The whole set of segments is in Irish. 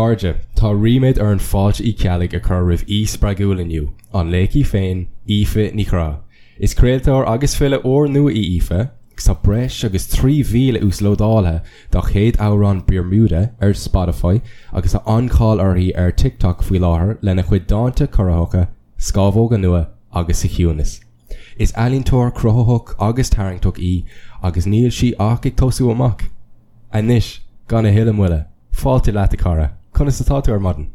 chairde, tá ríméad orainn Fáilte Uí Cheallaigh a chur roimh aoi spreagúil inniu, an laoch í féin, Aoife Ní Chorra. Is craoltóir agus file úrnua í Aoife, agus tá breis agus 3,000 uaslódáilte dá chéad amhrán Bermuda ar Spotify agus tá an-cháil uirthi ar TikTok faoi láthair lena cuid dánta corraitheacha, scámhóga nua agus sa chiúnas. Is ealaíontóir cruthaitheach agus tarraingteach í agus níl sí ach ag tosú amach. Anois, gan a thuilleadh moille, fáilte leat a chara, conas atá tú ar maidin?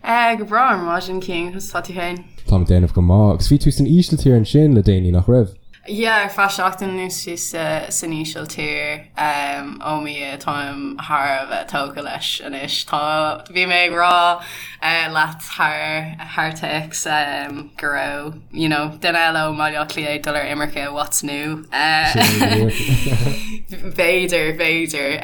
Eh, go breá ar maidin, Cian, conas atá tú féin? Táim ag déanamh go maith, agus bhí tú san Ísiltír ansin le déanaí, nach raibh? Yeah, ar feadh seachtain anuas bhíos san Ísiltír. Oh my Dhia, táim thar a bheith tógtha leis anois. Tá, bhí mé ag rá leat thar, thar téacs go raibh, you know, duine eile ó mBaile Átha Cliath ag dul ar imirce, what's new? B'fhéidir, b'fhéidir.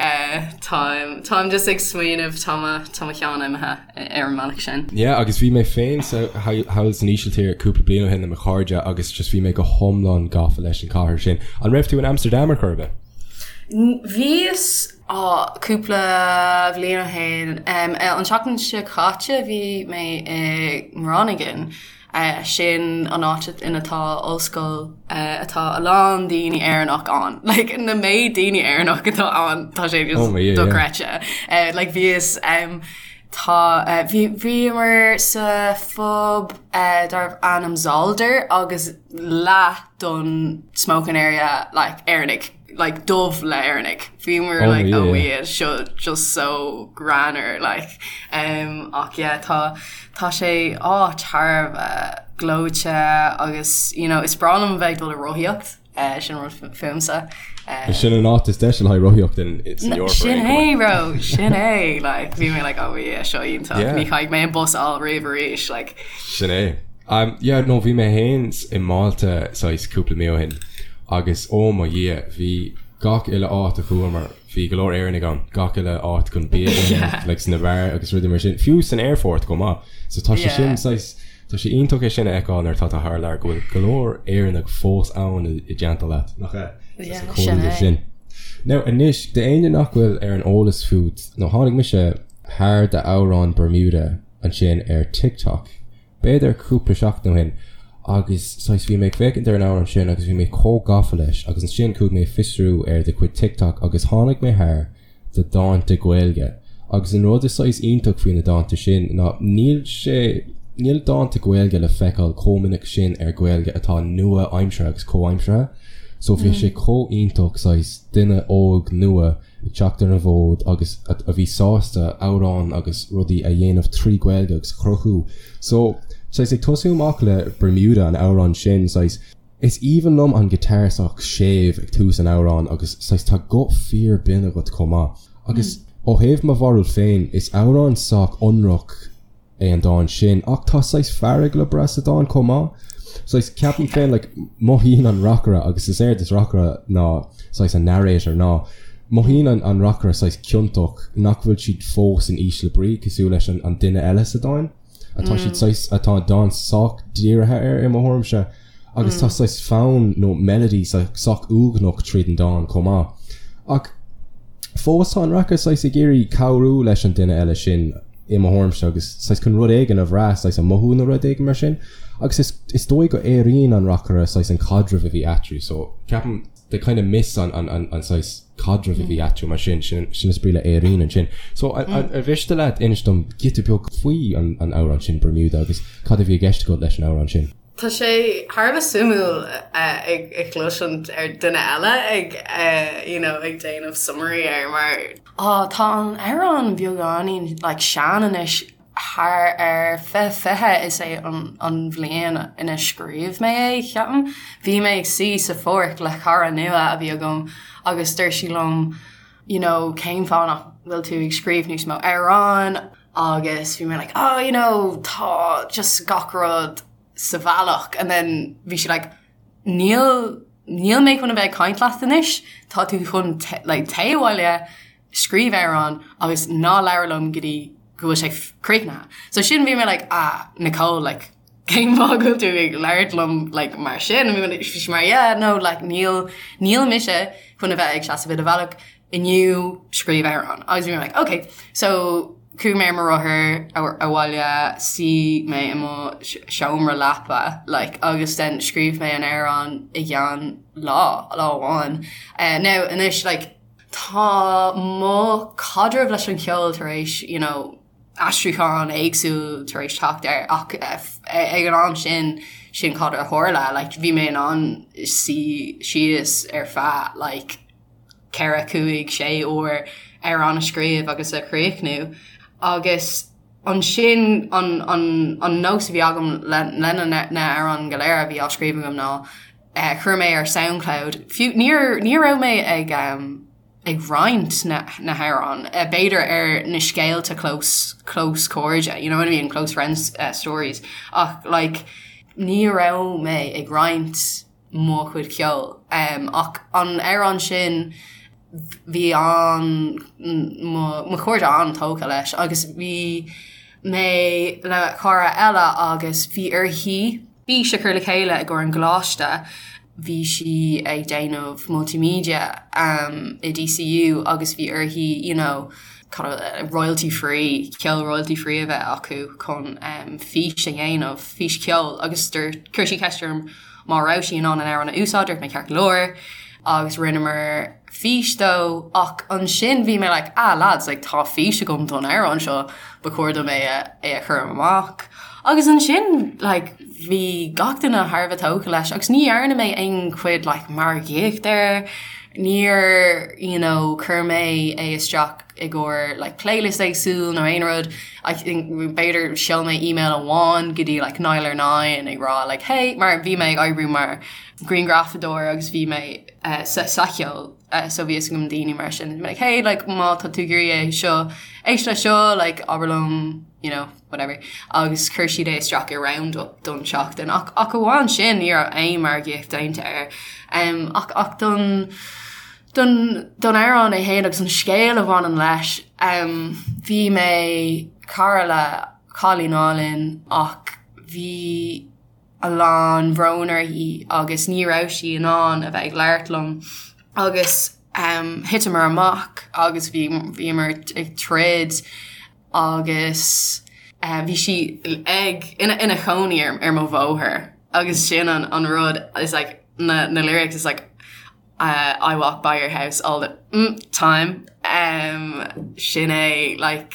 Táim, táim just ag smaoineamh, tá mo, tá mo cheann imithe. ar an mbealach sin. Yeah agus bhí mé féin sa thall san Ísiltír cúpla bliain ó shin le mo chairde agus just bhí mé go hiomlán gafa leis an chathair sin. An raibh tú in Amsterdam ar chor ar bith? Bhíos á cúpla bhliain ó shin. An tseachtain seo caite bhí mé i nGroningen. Sin an áit ina tá ollscoil atá a lán daoine Éireannach ann. Like na méid daoine Éireannach atá ann tá sé just dochreidte. Like bhíos tá bhí bhíomar sa phub darbh ainm Zolder agus leath don smoking area like Éireannaigh. like dubh le Éireannaigh. Bhíomar like oh yeah seo just so greannmhar like um ach yeah tá tá sé áit thar a bheith gleoite agus you know is breá liom a bheith ag dul ag rothaíocht eh sin rud fúmsa eh Sin an áit is deise le haghaidh rothaíocht in san Eoraip Sin é bro sin é like bhí mé like oh yeah seo iontach ní chaithfidh mé an bus a fháil riamh arís like Sin é. Um yeah no bhí mé fhéin i Málta saghas cúpla mí ó shin agus oh mo Dhia bhí gach uile áit a chuamar bhí go leor Éireannaigh ann, gach uile áit chun bia a ithe like sna beáir agus rudaí mar sin, fiú san aerfort chomh maith. So tá sé sin saghas tá sé iontach é sin a fheiceáil nuair atá tú thar lear go bhfuil go leor Éireannaigh fós ann i dteannta leat, nach ea? Yeah, sin é. sin. Now anois d'éinne nach bhfuil ar an eolas fút nó tháinig mise thar d'amhrán Bermuda ansin ar TikTok b'fhéidir cúpla seachtain ó shin agus saghas bhí mé ag féachaint ar an amhrán sin agus bhí mé chomh gafa leis agus ansin chuaigh mé ag fiosrú ar do chuid TikTok agus tháinig mé thar do dánta Gaeilge agus an rud is saghas iontach faoi na dánta sin ná níl sé níl dánta Gaeilge le feiceáil chomh minic sin ar Ghaeilge atá nua-aimseartha agus comhaimseartha so bhí sé chomh iontach saghas duine óg nua ag teacht ar an bhfód agus a bhí sásta amhráin agus rudaí a dhéanamh trí Ghaeilge agus a chruthú. So, saghas ag tosú amach le Bermuda, an amhrán sin, saghas, is aoibhinn liom an guitar sách séimh ag tús an amhráin agus saghas tá guth fíor binn agat chomh maith. Agus ó thaobh mo bharúil féin, is amhrán sách ionraic é an dán sin ach tá saghas fearg le brath sa dán chomh maith. Saghas, ceapaim féin, like, mothaíonn an reacaire, agus is éard is reacaire ná saghas an narrator, ná mothaíonn an, an reacaire saghas ciontach nach bhfuil siad fós in ísle brí cosúil leis an, an duine eile sa dán. Atá siad saghas, atá an dán sách dírithe air i mo thuairimse. Agus tá saghas fonn nó melody sách uaigneach tríd an dán chomh maith. Ach fós tá an reacaire saghas ag iarraidh cabhrú leis an duine eile sin i mo thuairimse agus saghas chun rud éigin a bhrath, saghas a mothú nó rud éigin mar sin. Agus is is dóigh go airíonn an reacaire saghas an caidreamh a bhí eatarthu so ceapaim they kind of miss an an an an saghas caidreamh a bhí eatarthu mar sin, sin sin is brí le airíonn ansin. So ar mhiste leat inis dom giota beag faoi an an amhrán sin Bermuda agus cad a bhí i gceist agat leis an amhrán sin? Tá sé thar a bheith suimiúil ag cloisint ar duine eile ag you know ag déanamh summary air mar á tá an amhrán beagáinín like sean anois thar ar 2020 is é an an bhliain ina scríobh mé é ceapaim. Bhí mé ag suí sa pháirc le cara nua a bhí agam agus dúirt sí liom you know cén fáth nach bhfuil tú ag scríobh níos mó amhrán agus bhí mé like oh you know tá just gach rud sa bhealach and then bhí sí like níl níl mé chun a bheith ag caint leat anois tá tú chun like téigh abhaile scríobh amhrán agus ná labhair liom go dtí go bhfuil sé críochnaithe. So sin bhí mé like ah Nicole like cén fáth go bhfuil tú ag labhairt liom like mar sin bhí sí mar yeah no like níl níl mise chun a bheith ag seasamh i do bhealach inniu scríobh amhrán agus bhí mé like okay so. Chuaigh mé ar mo rothar abhaile, suigh mé i mo seomra leapa like agus then scríobh mé an amhrán i gceann lá, lá amháin. Now anois like tá mo chaidreamh leis an cheol tar éis you know aistriúchán éagsúil tar éis teacht air ach ag an am sin sin cad a tharla like bhí mé in ann suí síos ar feadh like 4, 5, 6 uair amhrán a scríobh agus a chríochnú agus ansin an, an, an nós a bhí agam le, le na, na hamhráin go léir a bhí á scríobh agam ná eh, chuir mé ar Soundcloud, fiú níor, ní raibh mé ag um, ag roinnt na, na hamhráin, eh, b'fhéidir ar na scéalta close, close cairde, you know what I mean, close friends uh, stories, ach like ní raibh mé ag roinnt mo chuid ceoil. Ach an amhrán sin bhí an mo chairde an-tógtha leis agus bhí mé le cara eile agus bhí uirthi fís a chur le chéile i gcomhair an gcoláiste, bhí sí ag déanamh multimedia i DCU agus bhí uirthi you know royalty free, ceol royalty free a bheith acu chun fís a dhéanamh, fís ceoil agus chuir sí ceist orm Má raibh sí in ann an amhrán a úsáid, dúirt mé ceart go leor agus rinneamar fís dó ach ansin bhí mé like ah lads like tá fís agam don amhrán seo ba chóir dom é a é a chur amach agus ansin like bhí gach duine thar a bheith tógtha leis agus ní dhearna mé aon chuid like margaíocht air níor you know chuir mé é isteach i gcomhair like playlist éagsúil nó aon rud I think b'fhéidir sheol mé email amháin go dtí like Nialler9 ag rá like hey mar bhí mé ag oibriú mar grianghrafadóir agus bhí mé uh, sa, sa cheol uh, so bhí fhios agam daoine mar sin like hey like má tá tú ag iarraidh é seo éist le seo like abair liom you know whatever agus chuir siad é isteach i roundup don tseachtain ach ach amháin sin ní raibh aon margaíocht déanta air um, ach ach don Don don amhrán é féin agus an scéal a bhaineann leis, bhí mé cara le cailín álainn ach bhí a lán bhrón uirthi agus ní raibh sí in ann a bheith ag labhairt liom agus thiteamar amach agus bhí bhíomar ag troid agus bhí sí ag ina ina chónaí ar ar mo bhóthar agus sin an an rud is like na na lyrics is like I walk by your house all the mm time um, sin é like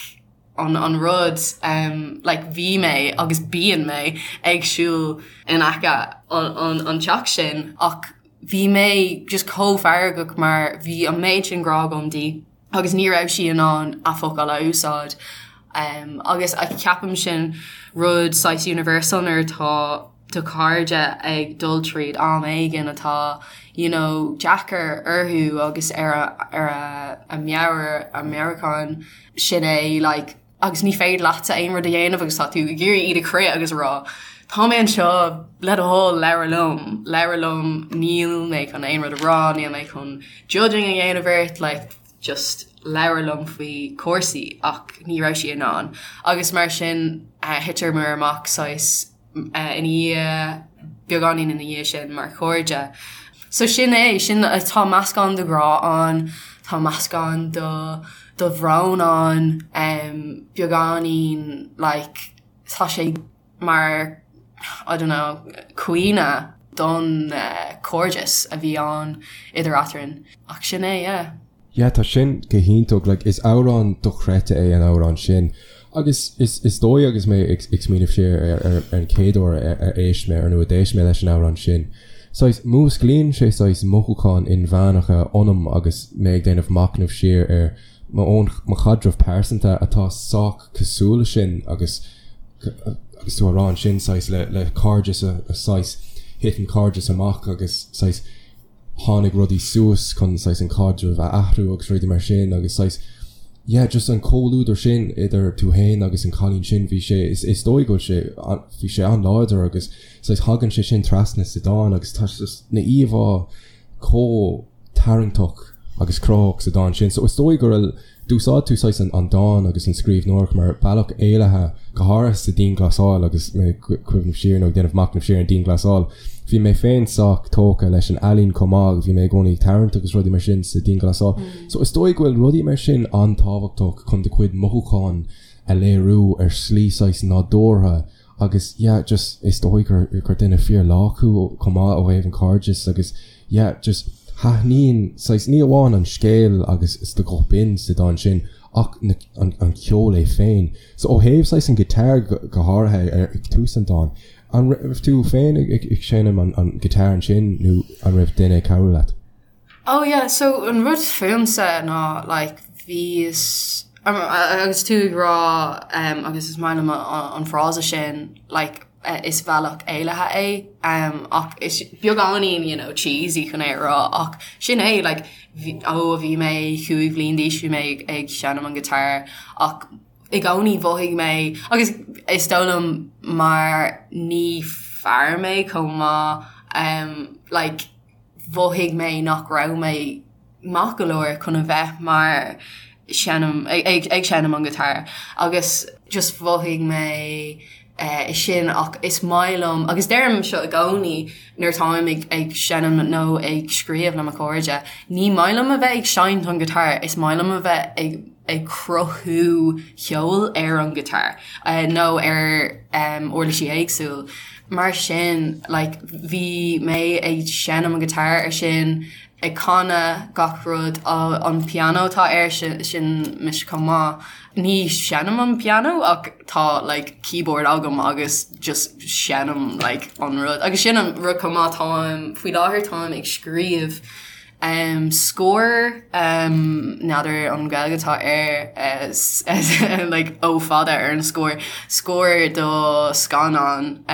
an an rud um, like bhí mé agus bíonn mé ag siúl in aice an an an teach sin ach bhí mé just chomh feargach mar bhí an méid sin grá agam di agus ní raibh sí in ann a focail a úsáid um, agus a ceapaim sin rud saghas universal nuair atá do chairde ag dul tríd am éigin atá you know deacair orthu agus ar a ar a a meabhair a meabhrúchán sin é like agus ní féidir leatsa aon rud a dhéanamh agus tá tú ag iarraidh iad a chrith agus a rá tá mé anseo le do thoil labhair liom labhair liom níl mé chun aon rud a rá níl mé chun judging a dhéanamh ort like just labhair liom faoi cúrsaí ach ní raibh sí in ann agus mar sin thiteamar amach saghas ina dhiaidh, beagáinín ina dhiaidh sin mar chairde. So sin é, sin, tá meascán de ghrá ann, tá meascán de de bhrón ann, beagáinín like tá sé mar I don't know caoineadh don chairdeas a bhí ann idir eadrainn. Ach sin é, yeah. Yeah, tá sin go hiontach, like is amhrán dochreidte é an amhrán sin. Agus is is dóigh agus mé ag ag smaoineamh siar ar ar ar an chéad uair ar ar éist mé ar nó a d'éist mé leis an amhrán sin, saghas músclaíonn sé saghas mothúcháin inmheánacha ionam agus mé ag déanamh machnamh siar ar mo own mo chaidreamh pearsanta atá sách cosúil le sin agus agus tú á rá ansin saghas le le cairdeas a a saghas thit an cairdeas amach agus saghas tháinig rudaí suas chun saghas an caidreamh a athrú agus rudaí mar sin agus saghas yeah just an comhluadar sin idir tú fhéin agus an cailín sin bhí sé is is dóigh go bhfuil sé bhí sé an-láidir agus saghas thagann sé sin trasna sa dán agus tá just na íomhá chomh tarraingteach agus cruthaitheach sa dán sin so is dóigh go raibh D'úsáid tú saghas an dán agus an scríbhneoireacht mar bealach éalaithe, go háirithe sa dianghlasáil agus mé ag cuimhneamh siar nó ag déanamh machnaimh siar ar an dianghlasáil. Bhí mé féin sách tógtha leis an ealaín chomh maith agus bhí mé i gcónaí ag tarraingt agus rudaí mar sin sa dianghlasáil. So is dóigh go bhfuil rudaí mar sin an-tábhachtach chun do chuid mothúchán. a léiriú ar shlí saghas nádúrtha agus yeah just is dóigh gur gur duine fíor lách thú chomh maith ó thaobh an cairdeas agus yeah just thaitníonn saghas ní amháin an scéal agus is do ghuth binn sa dán sin ach na an an ceol é féin. So ó thaobh saghas an guitar go go háirithe ar ag tús an dáin, an raibh tú féin ag ag seinm an an guitar ansin nó an raibh duine ag cabhrú leat? Oh yeah, so an rud fúmsa ná like bhíos agus tú ag rá um, agus is maith liom an frása sin like is bealach éalaithe é um, ach is beagáinín you know, cheesy chun é a rá ach sin é like, ó bhí mé 5 bhliain d'aois bhí mé ag, ag seinm an guitar ach i gcónaí mhothaigh mé agus is dóigh liom mar ní fear mé chomh maith um, like, mhothaigh mé nach raibh mé maith go leor chun a bheith mar seinm ag ag seinm an guitar agus just mhothaigh mé eh sin ach is maith liom agus deirim seo i gcónaí nuair atáim ag ag seinm nó ag scríobh le mo chairde ní maith liom a bheith ag seinnt an guitar is maith liom a bheith ag ag cruthú ceol ar an guitar nó ar uirlisí éagsúil. Mar sin like bhí mé ag seinm an guitar ar sin, ag canadh gach rud, an pianó atá air sin, sin mise chomh maith. Ní seinnim an pianó ach tá like keyboard agam agus just seinnim like an rud. Agus sin an rud chomh maith táim, faoi láthair táim ag scríobh Scór, n'fheadar an Ghaeilge atá air, like O fada ar an scór, scór do scannán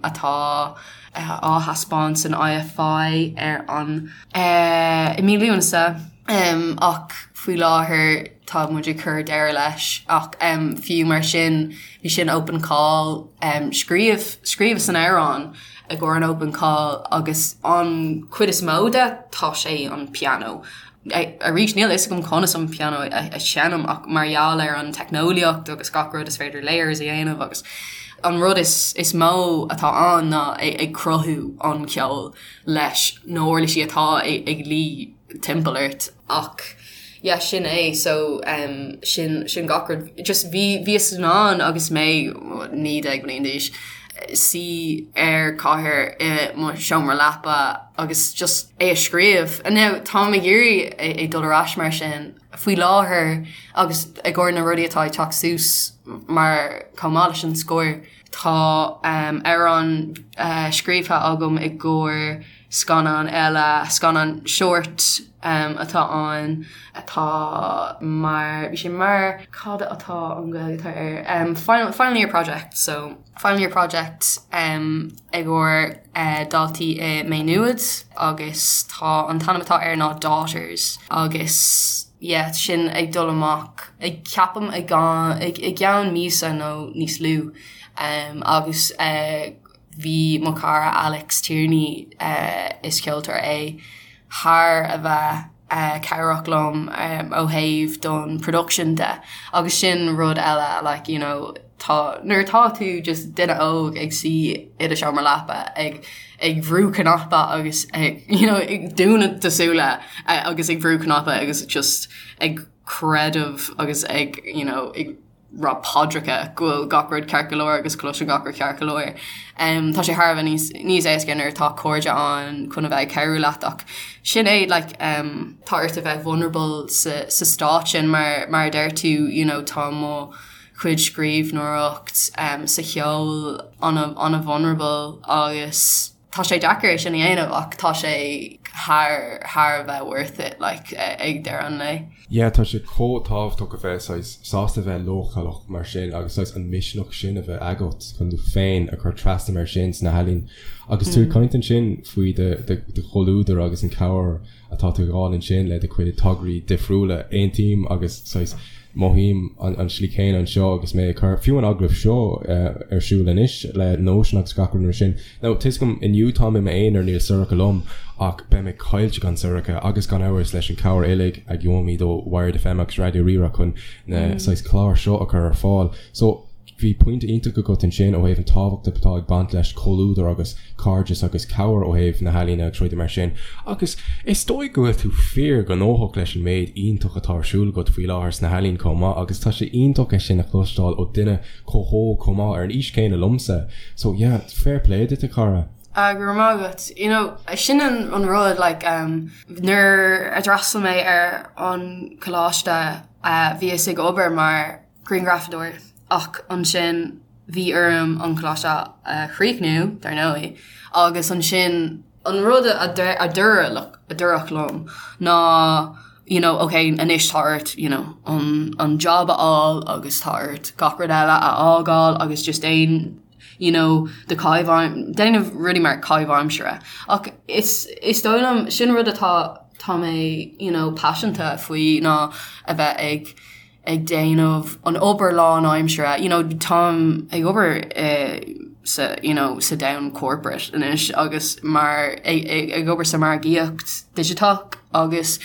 atá á thaispeáint san IFI ar an, i mí Lúnasa ach faoi láthair tá muid ag cur deireadh leis ach fiú mar sin bhí sin open call, scríobh, scríobhas an amhrán. i gcomhair an open call agus an chuid is mó de tá sé an pianó. Arís níl a fhios agam conas an pianó a sheinm ach mar gheall ar an teicneolaíocht agus gach rud is féidir layers a dhéanamh agus an rud is is mó atá ann ná ag cruthú an ceol leis na huirlisí atá ag luí timpeall ort. Ach yeah sin é so um, sin sin gach rud just bhí bhíos in ann agus mé 19 bliain d'aois suí ar chathaoir i mo seomra leapa agus just é a scríobh. And now táim ag iarraidh é dul ar ais mar sin faoi láthair agus i gcomhair na rudaí atá ag teacht suas mar chomh maith leis an scór tá um, amhrán uh, scríofa agam i gcomhair Scannán eile, scannán short atá ann atá mar, bhí sé mar, cad atá an Ghaeilge atá air, final, final year project, so final year project i gcomhair daltaí i Maigh Nuad agus tá an t-ainm atá air ná Daughters agus yeah sin ag dul amach ag ceapaim i gceann míosa nó níos lú agus Bhí mo chara Alex Tierney, is ceoltóir é, thar a bheith cabhrach liom ó thaobh don production de agus sin rud eile like you know tá nuair atá tú just duine óg ag suí i do seomra leapa ag ag brú cnaipe agus ag you know ag dúnadh do súile agus ag brú cnaipe agus just ag creideamh agus ag you know ag rá paidreacha go bhfuil gach rud ceart go leor agus cloiseann gach rud ceart go leor. Tá sé thar a bheith níos níos éasca nuair atá cairde ann chun a bheith ag cabhrú leat ach sin é like tá ort a bheith vulnerable sa sa stát sin mar mar a deir tú you know tá mo chuid scríbhneoireacht sa cheol ana ana vulnerable agus Tá sé deacair é sin a dhéanamh ach tá sé thar thar a bheith worth it like ag deireadh an lae. Yeah tá sé chomh tábhachtach a bheith saghas sásta bheith leochaileach mar sin agus saghas an misneach sin a bheith agat chun tú féin a chur trasna mar sin sna healaíona. Agus tú ag caint ansin faoi do do chomhluadar agus an cabhair atá tú ag fháil ansin le do chuid tograí difriúla. Aontaím agus saghas mothaím an tslí chéanna anseo agus mé ag cur fiú an agallamh seo ar siúl anois le Notion agus gach rud mar sin. Now tá a fhios agam inniu táim i m'aonar níl Sorcha liom ach beidh mé caillte gan Sorcha agus gan amhras leis an cabhair uilig a gheobhaimid ó Wired FM agus Raidió Rí-Rá chun na saghas cláir seo a chur ar fáil. So. Bhí pointe iontach agat ansin ó thaobh an tábhacht atá ag baint leis comhluadar agus cairdeas agus cabhair ó thaobh na healaíne agus rudaí mar sin. Agus is dóigh go bhfuil tú fíor ghnóthach leis an méid iontach atá ar siúl agat faoi láthair sna healaíona chomh maith agus tá sé iontach é sin a chloisteáil ó duine chomh hóg chomh maith ar an aois chéanna liomsa. So yeah, fair play duit a chara. Ah, go raibh maith agat. You know, sin an an rud like um, nuair a d'fhreastail mé ar an coláiste uh, bhíos ag obair mar grianghrafadóir ach ansin bhí orm an coláiste a chríochnú, dar ndóigh, agus ansin an rud a dúradh a dúradh liom ná you know, ok, anois tá ort you know, an, an job a fháil agus tá ort gach rud eile a fhágáil agus just déan you know, do caitheamh déanamh rudaí mar caitheamh aimsire. Ach is, is dóigh liom sin rud atá tá mé you know, paiseanta faoi ná a bheith ag ag déanamh an obair lánaimsire, you know, táim ag obair eh, sa you know, sa domhan corporate anois agus mar ag, ag, ag obair sa margaíocht digiteach agus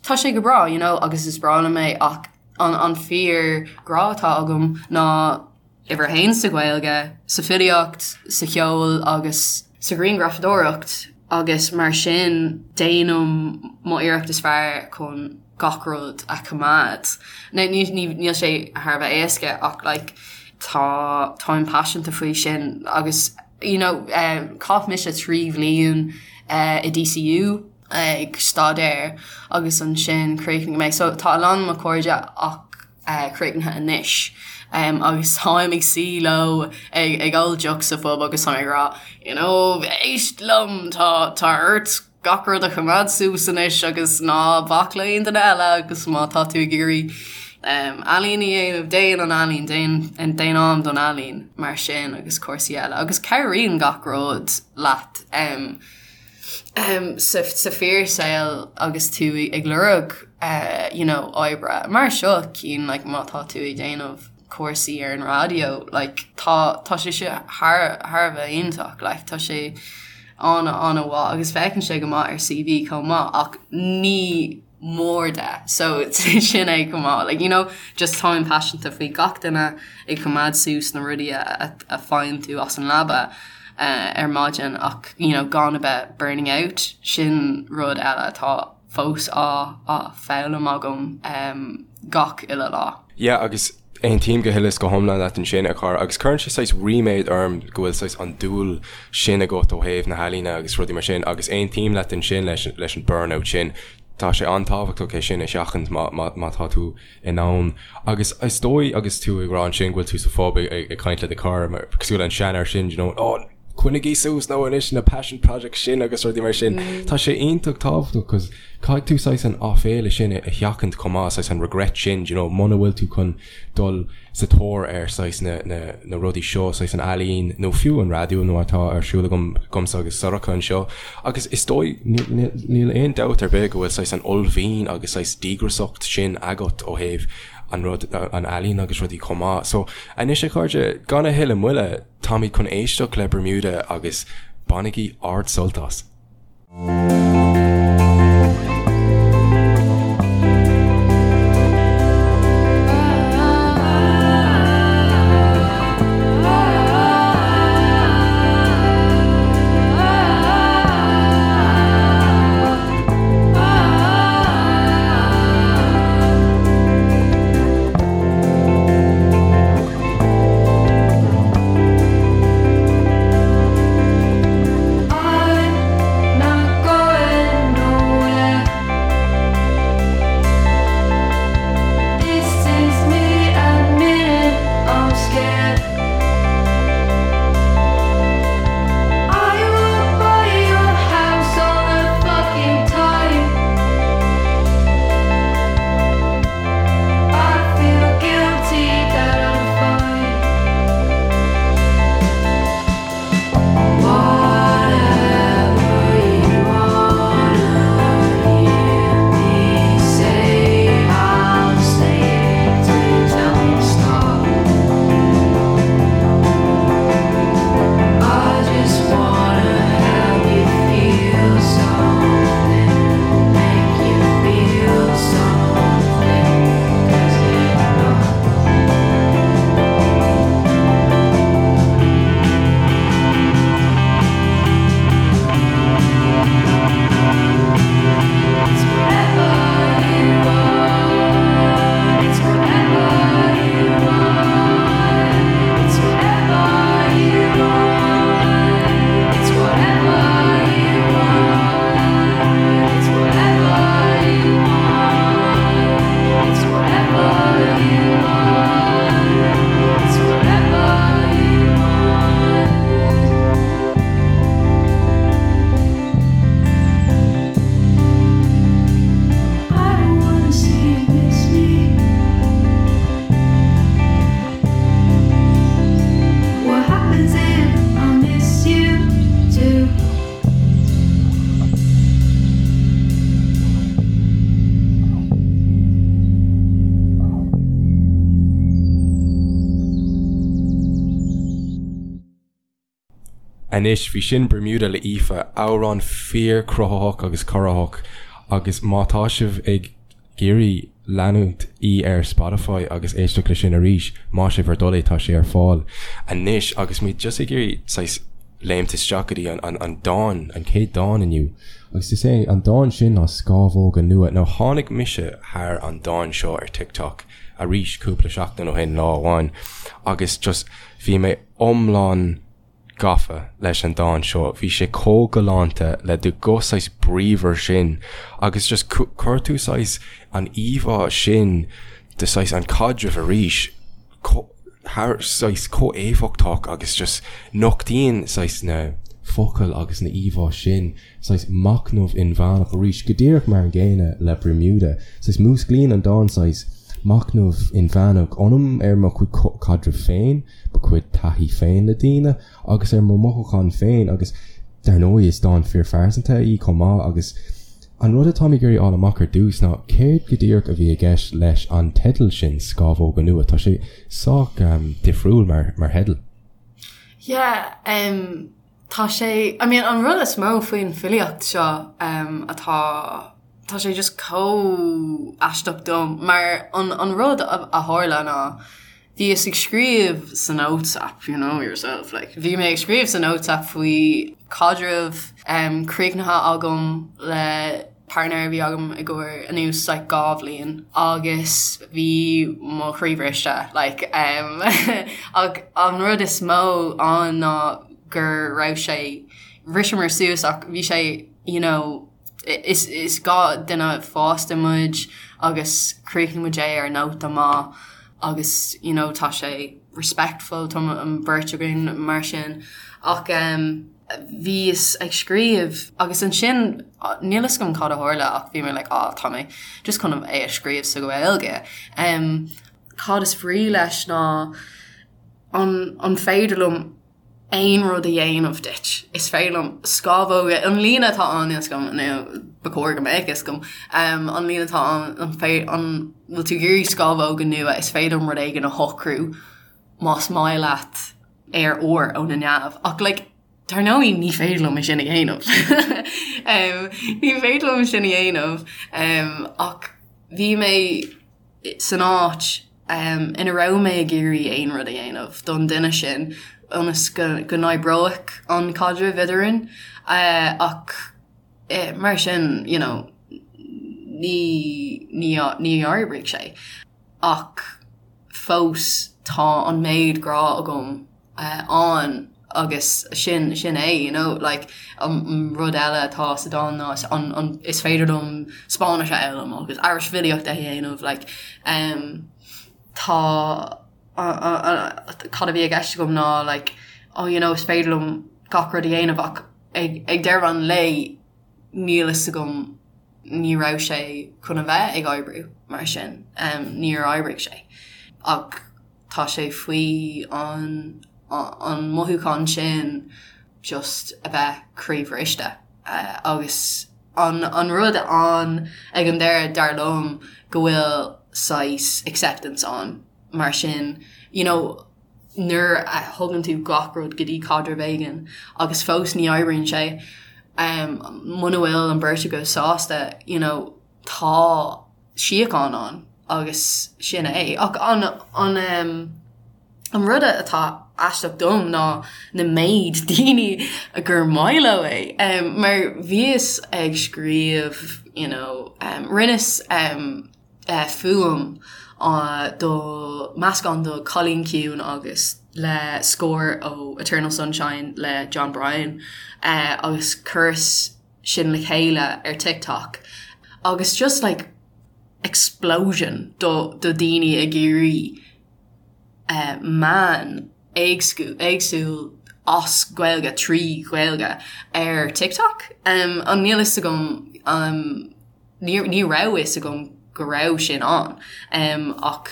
tá sé go breá, you know, agus is breá liom é ach an, an fíor grá atá agam ná uimhir a haon sa Ghaeilge, sa filíocht, sa cheol agus sa ghrianghrafadóireacht agus mar sin déanaim mo iarracht is fearr chun gach rud a choimeád. Now níl sé thar a bheith éasca ach like tá táim paiseanta faoi sin agus you know chaith mise 3 bhliain i DCU ag staidéar agus ansin chríochnaigh mé so tá a lán mo chairde ach críochnaithe anois agus táim ag suí leo ag ól deoch sa phub agus táim ag rá you know éist liom tá tá ort gach rud a choimeád suas anois agus ná bac le aon duine eile agus má tá tú ag iarraidh ealaín a dhéanamh déan an ealaín déan déan am don ealaín mar sin agus cúrsaí eile agus cabhraíonn gach rud leat um, sa sa fíorshaol agus tú ag lorg you know oibre mar seo cinn like má tá tú ag déanamh cúrsaí ar an raidió like tá tá sé seo thar thar a bheith iontach like tá sé an an-mhaith agus féachann sé go maith ar CV chomh maith ach ní mór de so sin é chomh maith like you know just táim paiseanta faoi gach duine ag coimeád suas na rudaí a a faigheann tú as an leaba uh, ar maidin ach you know gan a bheith burning out sin rud eile atá fós á á foghlaim agam um, gach uile lá. Yeah agus aontaím go huile is go hiomlán leat ansin, a chara, agus cuireann sé saghas ríméad orm go bhfuil saghas an dúil sin agat ó thaobh na healaíne agus rudaí mar sin agus aontaím leat ansin leis leis an burnout sin. Tá sé an-tábhachtach é sin a sheachaint má má má tá tú in ann. Agus is dóigh agus tú ag rá ansin go bhfuil tú sa phub ag ag ag caint le do chara mar cosúil le an seanfhear sin, you know, oh, coinnigí suas nó anois na passion projects sin agus rudaí mar sin. Tá sé iontach tábhachtach cos caithfidh tú saghas an áiféala sin a sheachaint chomh maith, saghas an regret sin, do you know, muna bhfuil tú chun dul sa tóir ar saghas na, na, na rudaí seo, saghas an ealaín nó fiú an raidió nó atá ar siúl agam, agamsa agus Sorcha anseo. Agus is dóigh, níl, níl aon dabht ar bith go bhfuil saghas an uaillmhian agus saghas díograsacht sin agat ó thaobh an rud, an ealaín agus rudaí chomh maith. So, anois a chairde, gan a thuilleadh moille, Táimid chun éisteacht le Bermuda agus bainigí ard-sult as! I'm not going Anois, bhí sin Bermuda le Aoife, amhrán fíor-chruthaitheach agus corraitheach agus má tá sibh ag iarraidh leanúint í ar Spotify agus éisteacht le sin arís, más é bhur dtoil é, tá sé ar fáil anois agus muid just ag iarraidh saghas léimt isteach go dtí an dán, an chéad dán inniu agus is é an dán sin ná Scámhóga Nua. Now tháinig mise thar an dán seo ar TikTok arís cúpla seachtain ó shin, lá amháin, agus just bhí mé iomlán gafa leis an dán seo. Bhí sé chomh galánta le do ghuth saghas bríomhar sin agus just chuir tú saghas an íomhá sin de saghas an caidreamh arís thar saghas chomh éifeachtach agus just nochtaíonn saghas na focail agus na íomhá sin saghas machnamh inmheánach arís, go díreach mar an gcéanna le Bermuda. Saghas músclaíonn an dán saghas machnamh inmheánach ionam ar mo chuid caidreamh féin, mo chuid taithí féin le daoine agus ar mo mhothúcháin féin agus dar ndóigh is dán fíorphearsanta í chomh maith agus an rud atáim ag iarraidh fháil amach ar dtús ná céard go díreach a bhí i gceist leis an teideal sin Scámhóga Nua. Tá sé sách difriúil mar mar theideal. Yeah, um, Tá sé, I mean an rud is mó faoin filíocht seo atá, tá sé just chomh aisteach dom mar an an rud a tharla ná bhíos ag scríobh sa notes app, you know yourself, like bhí mé ag scríobh sa notes app faoi caidreamh críochnaithe agam le partner a bhí agam i gcomhair anuas like 2 bhliain agus bhí mo chroí briste like um ach an rud is mó ann ná go raibh sé bhriseamar suas ach bhí sé you know is is 2 duine fásta muid agus chríochnaigh muid é ar nóta maith agus you know tá sé respectful tá an bheirt againn mar sin ach um bhíos ag scríobh agus ansin níl fhios agam cad a tharla ach bhí mé like ah tá mé just chun é a scríobh sa Ghaeilge. Um, cad is brí leis ná an, an féidir liom aon rud a dhéanamh duit. Is féidir liom scámhóga, an líne atá ann níl fhios agam nó ba chóir go mbeadh fhios agam, um, an líne atá ann an fé, an bhfuil tú ag iarraidh scámhóga nua is féidir liom rud éigin a shocrú más maith leat aer úr ó na neamh ach like dar ndóigh ní féidir liom é sin a dhéanamh. um, ní féidir liom sin a dhéanamh um, ach bhí mé san áit um, ina raibh mé ag iarraidh aon rud a dhéanamh don duine sin ionas go, go n-oibreodh an caidreamh eadrainn uh, ach eh, mar sin you know, ní, ní, ní oibrigh sé ach fós tá an méid grá agam ann agus sin sin é you know like an rud eile atá sa dán ná an an is féidir liom Spáinnis a fhoghlaim agus Irish filíocht a dhéanamh like um tá cad a bhí i gceist agam ná like oh you know is féidir liom gach rud a dhéanamh ach ag ag deireadh an lae níl fhios agam ní raibh sé chun a bheith ag oibriú mar sin, níor oibrigh sé. Ach tá sé faoi an an mothúchán sin just a bheith croíbhriste. Agus an an rud ann ag an deireadh dar liom go bhfuil saghas acceptance ann mar sin you know nuair a thugann tú gach rud go dtí caidreamh éigin agus fós ní oibríonn sé, muna bhfuil an bheirt agaibh sásta, you know, tá síocháin ann agus sin é. Ach an, an, an rud atá aisteach dom ná na méid daoine gur maith leo é. Mar bhíos ag scríobh, you know, rinneas, fuaim do meascán do Cailín Ciúin agus le scór ó Eternal Sunshine le Jon Brion agus chuireas sin le chéile ar TikTok agus just like explosion do do daoine ag iarraidh meán éagsúil as Gaeilge trí Ghaeilge ar TikTok. An níl fhios agam ní raibh fhios agam go raibh sin ann ach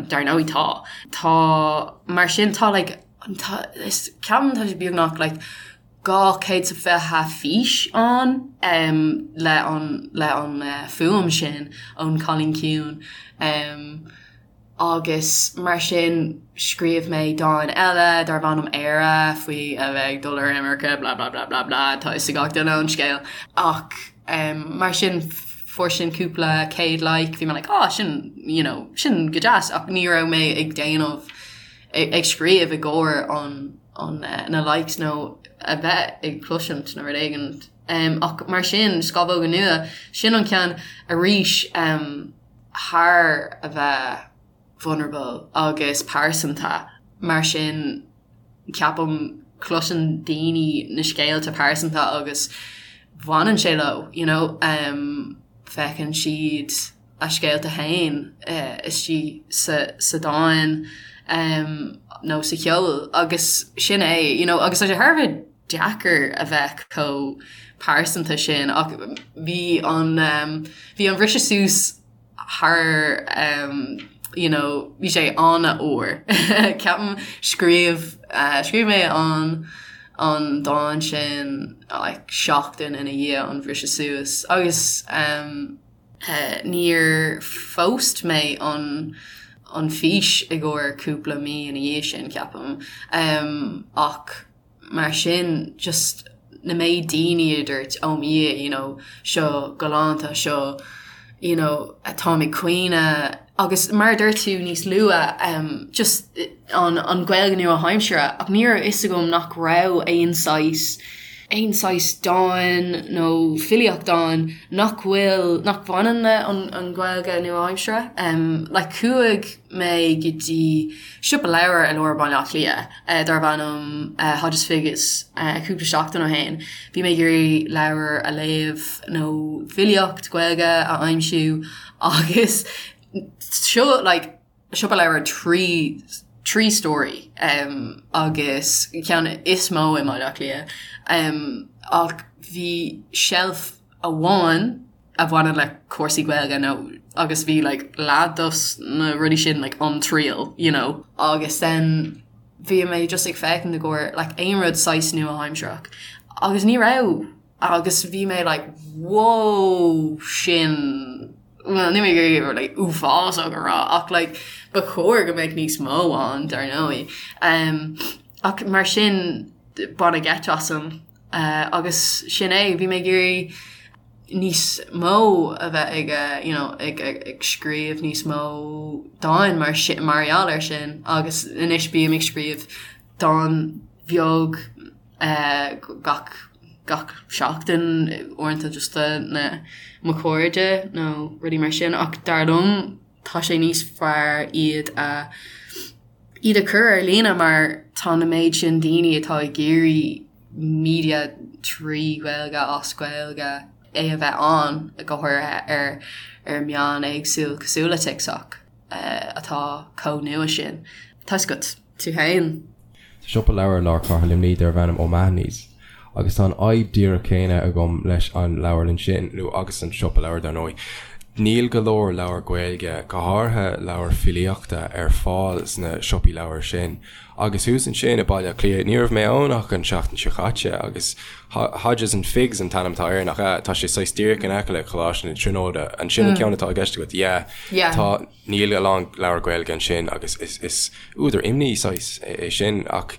dar ndóigh tá. Tá mar sin tá like tá is ceapaim tá sé beagnach like 220 fís ann le an le an fuaim sin ón Cailín Ciúin. Agus mar sin scríobh mé dán eile darb ainm Éire faoi a bheith ag dul ar imirce blah blah blah blah blah tá fhios ag gach duine an scéal. Ach mar sin fuair sin cúpla céad like bhí mé like ah sin you know sin go deas ach ní raibh mé ag déanamh ag scríobh i gcomhair an an na likes nó a bheith ag cloisint nó rud éigin. Ach mar sin Scamhóga Nua sin an ceann arís thar a bheith vulnerable agus pearsanta, mar sin ceapaim cloiseann daoine na scéalta pearsanta agus bhaineann sé leo, you know, feiceann siad a scéalta féin istigh sa sa dán nó sa cheol agus sin é, you know, agus tá sé thar a bheith deacair a bheith chomh pearsanta sin ach bhí an bhí an bhriseadh suas thar you know bhí sé an-fhuar. Ceapaim scríobh scríobh mé an an dán sin like seachtain ina dhiaidh an bhriseadh suas agus níor phost mé an an fís i gcomhair cúpla mí ina dhiaidh sin ceapaim ach mar sin just na méid daoine a dúirt oh mo Dhia you know seo galánta seo you know táim ag caoineadh agus mar a dúirt tú níos luaithe um, just an, an Ghaeilge nua-aimseartha ach ní raibh fhios agam nach raibh aon saghas aon saghas dán nó filíocht ann nach bhfuil nach bhaineann le an, an Ghaeilge nua-aimseartha um, like chuaigh mé go dtí siopa leabhar i lár Baile Átha Cliath darb ainm Hodges Figgis cúpla seachtain ó shin. Bhí mé ag iarraidh leabhar a léamh nó filíocht Gaeilge a aimsiú agus seo like siopa leabhar 3 3 stóraí um, agus ceann is mó i mBaile Átha Cliath um, ach bhí shelf amháin a bhaineann le cúrsaí Gaeilge nó agus bhí like leath dos na rudaí sin like An Triail you know agus then bhí mé just ag féachaint i gcomhair like aon rud saghas nua-aimsearach agus ní raibh agus bhí mé like whoa sin well ní mé gur like uafásach a rá ach like ba chóir go mbeadh níos mó ann dar ndóigh um, ach mar sin baineadh geit asam uh, agus sin é bhí mé ag iarraidh níos mó a bheith ag you know ag ag scríobh níos mó dáin mar sin mar gheall air sin agus anois bím ag scríobh dán bheag gach gach seachtain uaireanta just do na mo chairde nó rudaí mar sin ach dar liom tá sé níos fearr iad a iad a chur ar líne mar tá na méid sin daoine atá ag iarraidh media trí Ghaeilge as Gaeilge é a bheith ann, go háirithe ar ar meán éagsúil cosúil le TikTok atá chomh nua sin. Tá 'fhios agat, tú féin. Tá siopa leabhar i lár cathair Luimnigh darb ainm O'Mahony's agus tá an fhadhb díreach céanna agam leis an leabharlann sin, nó agus an siopa leabhar dar ndóigh. Níl go leor leabhar Gaeilge, go háirithe leabhair filíochta, ar fáil sna siopaí leabhar sin. Agus thuas ansin i Baile Átha Cliath, ní raibh mé ann ach an tseachtain seo caite agus Hodges and Figgis an t-ainm atá air, nach ea? Tá sé saghas díreach in aice le Coláiste na Tríonóide. An sin an ceann atá i gceist agat? Yeah. Yeah. Tá, níl a lán leabhar Gaeilge ansin agus is, is údar imní saghas é sin ach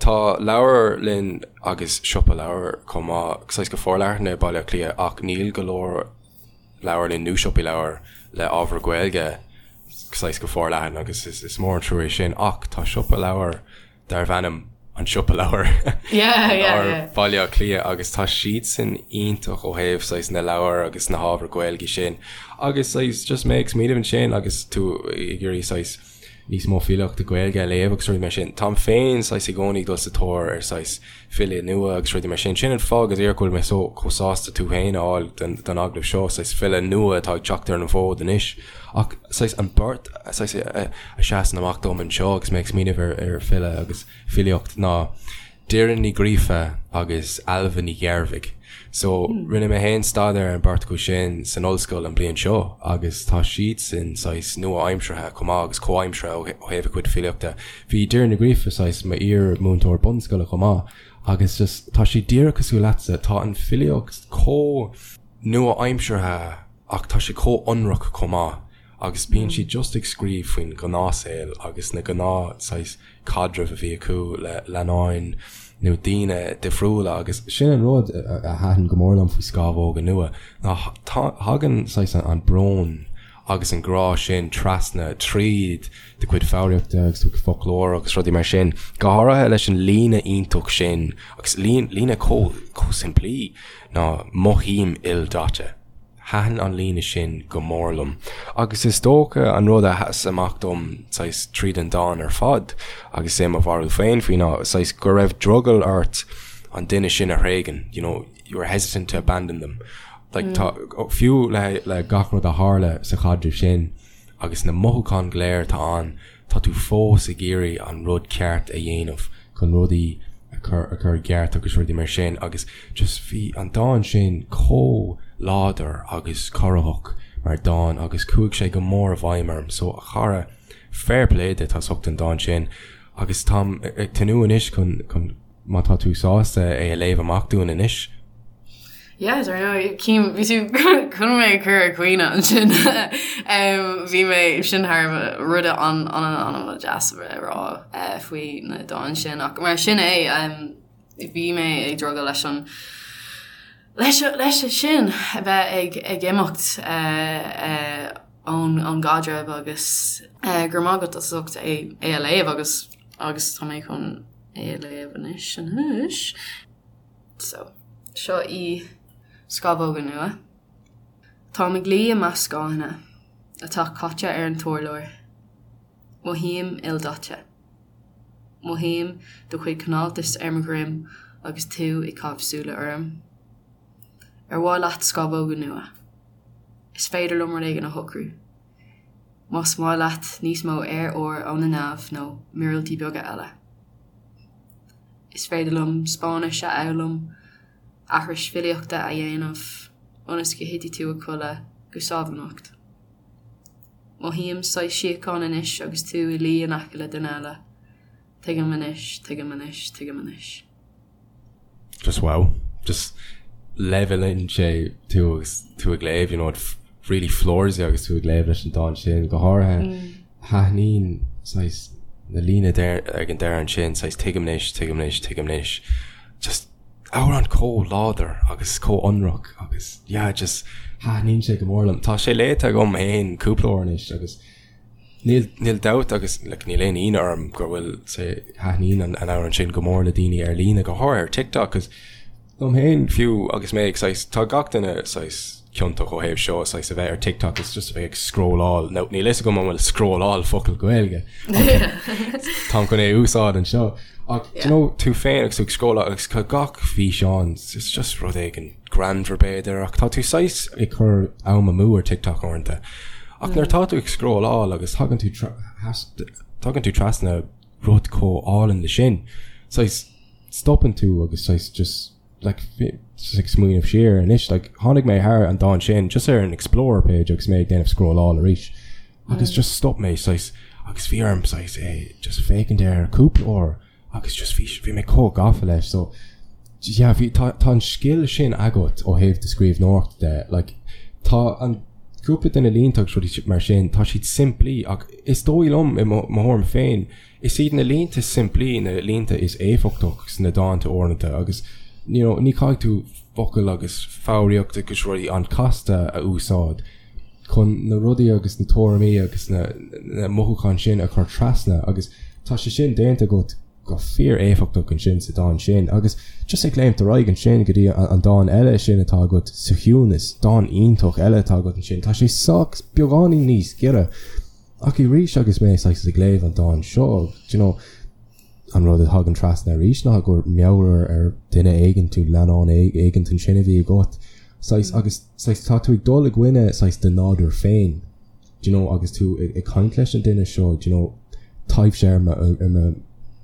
tá leabharlann agus siopa leabhar chomh maith saghas go forleathan i Baile Átha Cliath ach níl go leor leabharlann nó siopaí leabhar le ábhar Gaeilge saghas go forleathan agus is mór an trua é sin ach tá siopa leabhar darbh ainm An Siopa Leabhar i lár Bhaile Átha Cliath agus tá siadsan iontach ó thaobh saghas na leabhar agus na hábhar Gaeilge sin agus saghas just mé ag smaoineamh ansin agus tú ag iarraidh saghas níos mó filíochta Gaeilge a léamh agus rudaí mar sin. Táim féin saghas i gcónaí ag dul sa tóir ar saghas file nua agus rudaí mar sin. Sin an fáth go díreach go bhfuil mé so chomh sásta tú féin a fháil don don agallamh seo, saghas file nua atá ag teacht ar an bhfód anois. Ach saghas an bheirt saghas a a seasann amach dom anseo agus mé ag smaoineamh ar ar file agus filíocht ná Doireann Ní Ghríofa agus Ailbhe Ní Ghearbhuigh. So rinne mé féin staidéar ar an bheirt acu sin san ollscoil an bhliain seo agus tá siadsan saghas nua-aimseartha chomh maith agus comhaimseartha ó thaobh a gcuid filíochta. Bhí Doireann Ní Ghríofa saghas m'iar-mhúinteoir bunscoile chomh maith agus just tá sí díreach cosúil leatsa, tá an filíocht chomh nua-aimseartha ach tá sé chomh ionraic chomh maith. agus bíonn siad just ag scríobh faoin ghnáthshaol agus na gnáth saghas caidrimh a bhí acu le leannáin nó daoine difriúla agus sin an rud a thaitin go mór liom faoi Scámhóga Nua ná thagann saghas an brón agus an grá sin trasna tríd do chuid foghraíochta agus do chuid foclóir agus rudaí mar sin, go háirithe leis an líne iontach sin agus líne chomh simplí ná mothaím ildaite. Thaitin an líne sin go mór liom. Agus is dócha an rud a sheas amach dom saghas tríd an dán ar fad, agus é mo bharúil féin faoi, ná saghas go raibh drogall ort an duine sin a thréigean, you know, you were hesitant to abandon them. Like tá, fiú le le gach rud a tharla sa chaidreamh sin agus na mothúcháin go léir atá ann, tá tú fós ag iarraidh an rud ceart a dhéanamh chun rudaí a chur a chur i gceart agus rudaí mar sin agus just bhí an dán sin chomh láidir agus corraitheach mar dán agus chuaigh sé go mór i bhfeidhm orm so a chara fair play duit as ucht an dán sin agus táim ag tnúth anois chun chun má tá tú sásta é a léamh amach dúinn anois. Yeah, dar ndóigh, cím, bhí tú chun mé a chur ag caoineadh ansin. Bhí mé, sin thar a bheith rud an-an-an-deas a bheith a rá faoi na dán sin ach mar sin é, bhí mé ag drogall leis an leis leis sin a bheith ag ag imeacht ón ón gcaidreamh agus go raibh maith agat as ucht é é a léamh agus agus tá mé chun é a léamh anois anois. So, seo í Scamhóga Nua. Táim ag luí i measc scáthanna atá caite ar an t-urlár. Mothaím ildaite. Mothaím do chuid cineáltais ar mo dhroim agus tú ag caitheamh súile orm. Ar mhaith leat scamhóga nua? Is féidir liom rud éigin a shocrú. Más maith leat níos mó aer úr ó na neamh nó míorúiltí beaga eile. Is féidir liom Spáinnis a fhoghlaim, aithris filíochta a dhéanamh ionas go thitfidh tú a chodladh go sámh anocht. Mothaím saghas síocháin anois agus tú i luí in aice le duine eile. Tuigim anois, tuigim anois, tuigim anois. Just wow. Just leibhéalann sé tú agus tú ag léamh, you know, it really floors you agus tú ag léamh leis an dán sin, go háirithe thaitníonn saghas na líne ag an deireadh ansin, saghas tuigim anois, tuigim anois, tuigim anois. Just amhrán chomh láidir agus chomh ionraic agus yeah, just thaitníonn sé go mór liom. Tá sé léite agam féin cúpla uair anois agus Níl, níl dabht agus like níl aon ionadh orm go bhfuil sé, thaitníonn an amhrán sin go mór le daoine ar líne, go háirithe ar TikTok, 'cause dom féin fiú agus mé ag saghas, tá gach duine saghas ciontach ó thaobh seo, saghas a bheith ar TikTok is just a bheith ag scrolláil, nó níl fhios agam an bhfuil scrolláil focal Gaeilge táim chun é a úsáid anseo ach do you know tú féin agus tú ag scrolláil agus tá gach físeán, it's just rud éigin greannmhar b'fhéidir ach tá tú saghas ag cur am amú ar TikTok uaireanta. Ach nuair atá tú ag scrolláil agus tagann tú tagann tú trasna rud chomh álainn le sin, saghas stopann tú agus saghas just like just ag smaoineamh siar anois like tháinig mé thar an dán sin just ar an explore page agus mé ag déanamh scrolláil arís agus just stop mé saghas agus bhí orm saghas é just féachaint air cúpla uair agus just bhí bhí mé chomh gafa leis so yeah bhí tá tá an scil sin agat ó thaobh do scríbhneoireachta de like tá an cúpla de na línte agus rudaí mar sin tá siad simplí ach is dóigh liom i mo mo thuairim féin is iad na línte simplí na línte is éifeachtach sna dánta uaireanta agus you know ní caithfidh tú focail agus foghraíocht agus rudaí an-chasta a úsáid chun na rudaí agus na tuairimí agus na na mothúcháin sin a chur trasna agus tá sé sin déanta agat go fíor-éifeachtach ansin sa dán sin agus just ag léimt ar aghaidh ansin go dtí an dán eile sin atá agat sa chiúnas, dán iontach eile atá agat ansin, tá sé sách beagáinín níos giorra ach arís agus mé saghas ag léamh an dán seo, do you know, an rud a thagann trasna arís ná gur meabhair ar duine éigin nó leannán éigin ansin a bhí agat saghas agus saghas tá tú ag dul i gcoinne saghas do nádúr féin do you know agus tú ag ag caint leis an duine seo do you know taibhse ar mo ar mo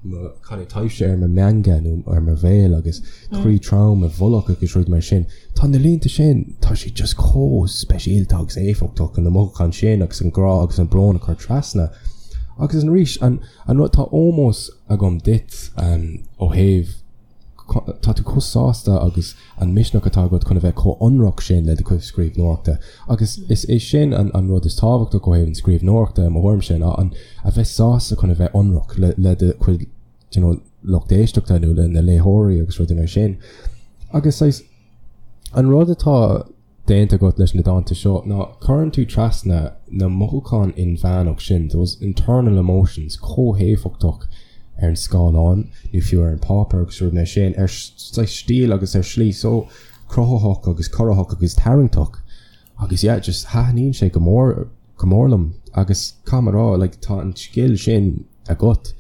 mo cad é taibhse ar mo mheanga nó ar mo bhéal agus croí trom i bhfolach agus rudaí mar sin. Tá na línte sin tá siad just chomh speisialta agus éifeachtach na mothúcháin sin agus an grá agus an brón a chur trasna. Agus arís an An rud, tá ómós agam duit ó thaobh tá tú chomh sásta agus an misneach atá agat chun a bheith chomh hionraic sin le do chuid scríbhneoireachta. Agus is é sin an an rud is tábhachtach ó thaobh an scríbhneoireachta i mo thuairimse ná an a bheith sásta chun a bheith ionraic le le do chuid you know, lucht éisteachta nó le na léitheoirí agus rudaí mar sin. Agus saghas an rud atá déanta agat leis na dánta seo ná cuireann tú trasna na mothúcháin inmheánach sin, those internal emotions, chomh héifeachtach ar an scáileán nó fiú ar an páipéar agus rudaí mar sin, ar saghas stíl agus ar shlí so cruthaitheach agus corraitheach agus tarraingteach. Agus yeah, just thaitníonn sé go mór go mór liom agus caithfidh mé a rá, like, tá an scil sin agat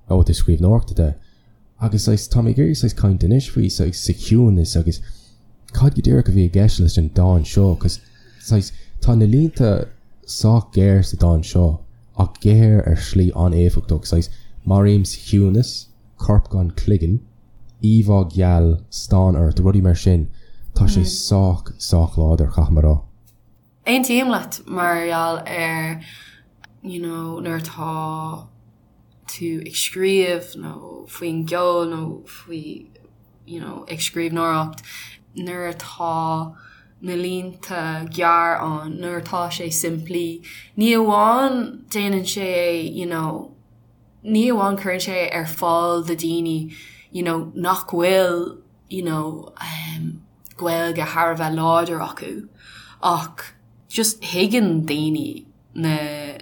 ó thaobh scríbhneoireachta de. Agus saghas, tá mé ag iarraidh saghas caint anois faoi saghas sa chiúnas agus cad go díreach a bhí i gceist leis an dán seo cos saghas tá na línte sách géar sa dán seo ach géar ar shlí an-éifeachtach, saghas maraím sa chiúnas, corp gan cloigeann, íomhá gheal, stán ort, rudaí mar sin, tá sé sách, sách láidir, caithfidh mé a rá. Aontaím leat mar gheall ar you know nuair atá tú ag scríobh nó faoin gceol nó faoi you know ag scríbhneoireacht nuair atá na línte gearr ann, nuair atá sé simplí, ní amháin déanann sé é you know ní amháin cuireann sé ar fáil do daoine you know nach bhfuil you know um Gaeilge thar a bheith láidir acu ach just thuigeann daoine na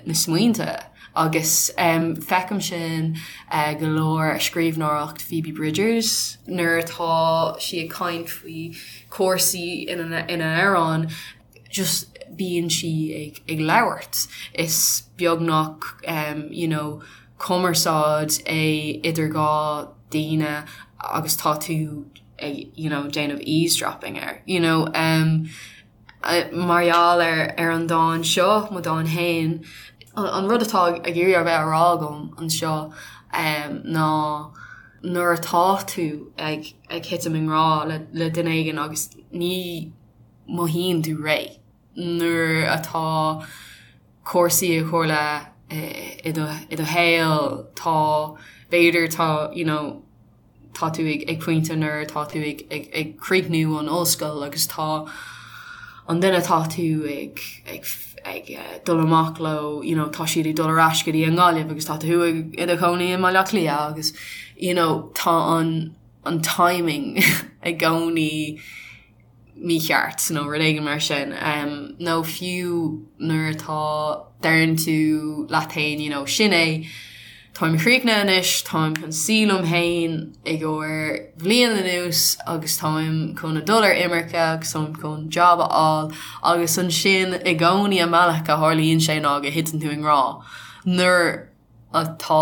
na smaointe agus um feicim sin uh go leor i scríbhneoireacht Phoebe Bridgers nuair atá sí ag caint faoi cúrsaí ina ina amhrán just bíonn sí ag ag labhairt is beagnach um you know cumarsáid é idir dhá daoine agus tá tú ag you know déanamh eavesdropping air you know um mar gheall ar ar an dán seo mo dán fhéin an rud atá ag iarraidh a bheith á rá agam anseo um ná nuair atá tú ag ag thitim i ngrá le le duine éigin agus ní mothaíonn tú réidh nuair atá cúrsaí ag tarlú i do i do shaol tá b'fhéidir tá you know tá tú ag ag pointe nuair atá tú ag ag ag críochnú an ollscoil agus tá an duine atá tú ag ag ag dul amach leo you know tá siad ag dul ar ais go dtí an Ghaillimh agus tá tú ag i do chónaí i mBaile Átha Cliath agus you know tá an an timing i gcónaí mícheart nó rud éigin mar sin. Nó fiú nuair atá, deireann tú leat féin you know sin é, táim críochnaithe anois, táim chun suí liom féin i gcomhair bhliain anuas agus táim chun a dul ar imirce agus táim chun job a fháil agus ansin i gcónaí an bealach a tharlaíonn sé ná go thiteann tú i ngrá nuair atá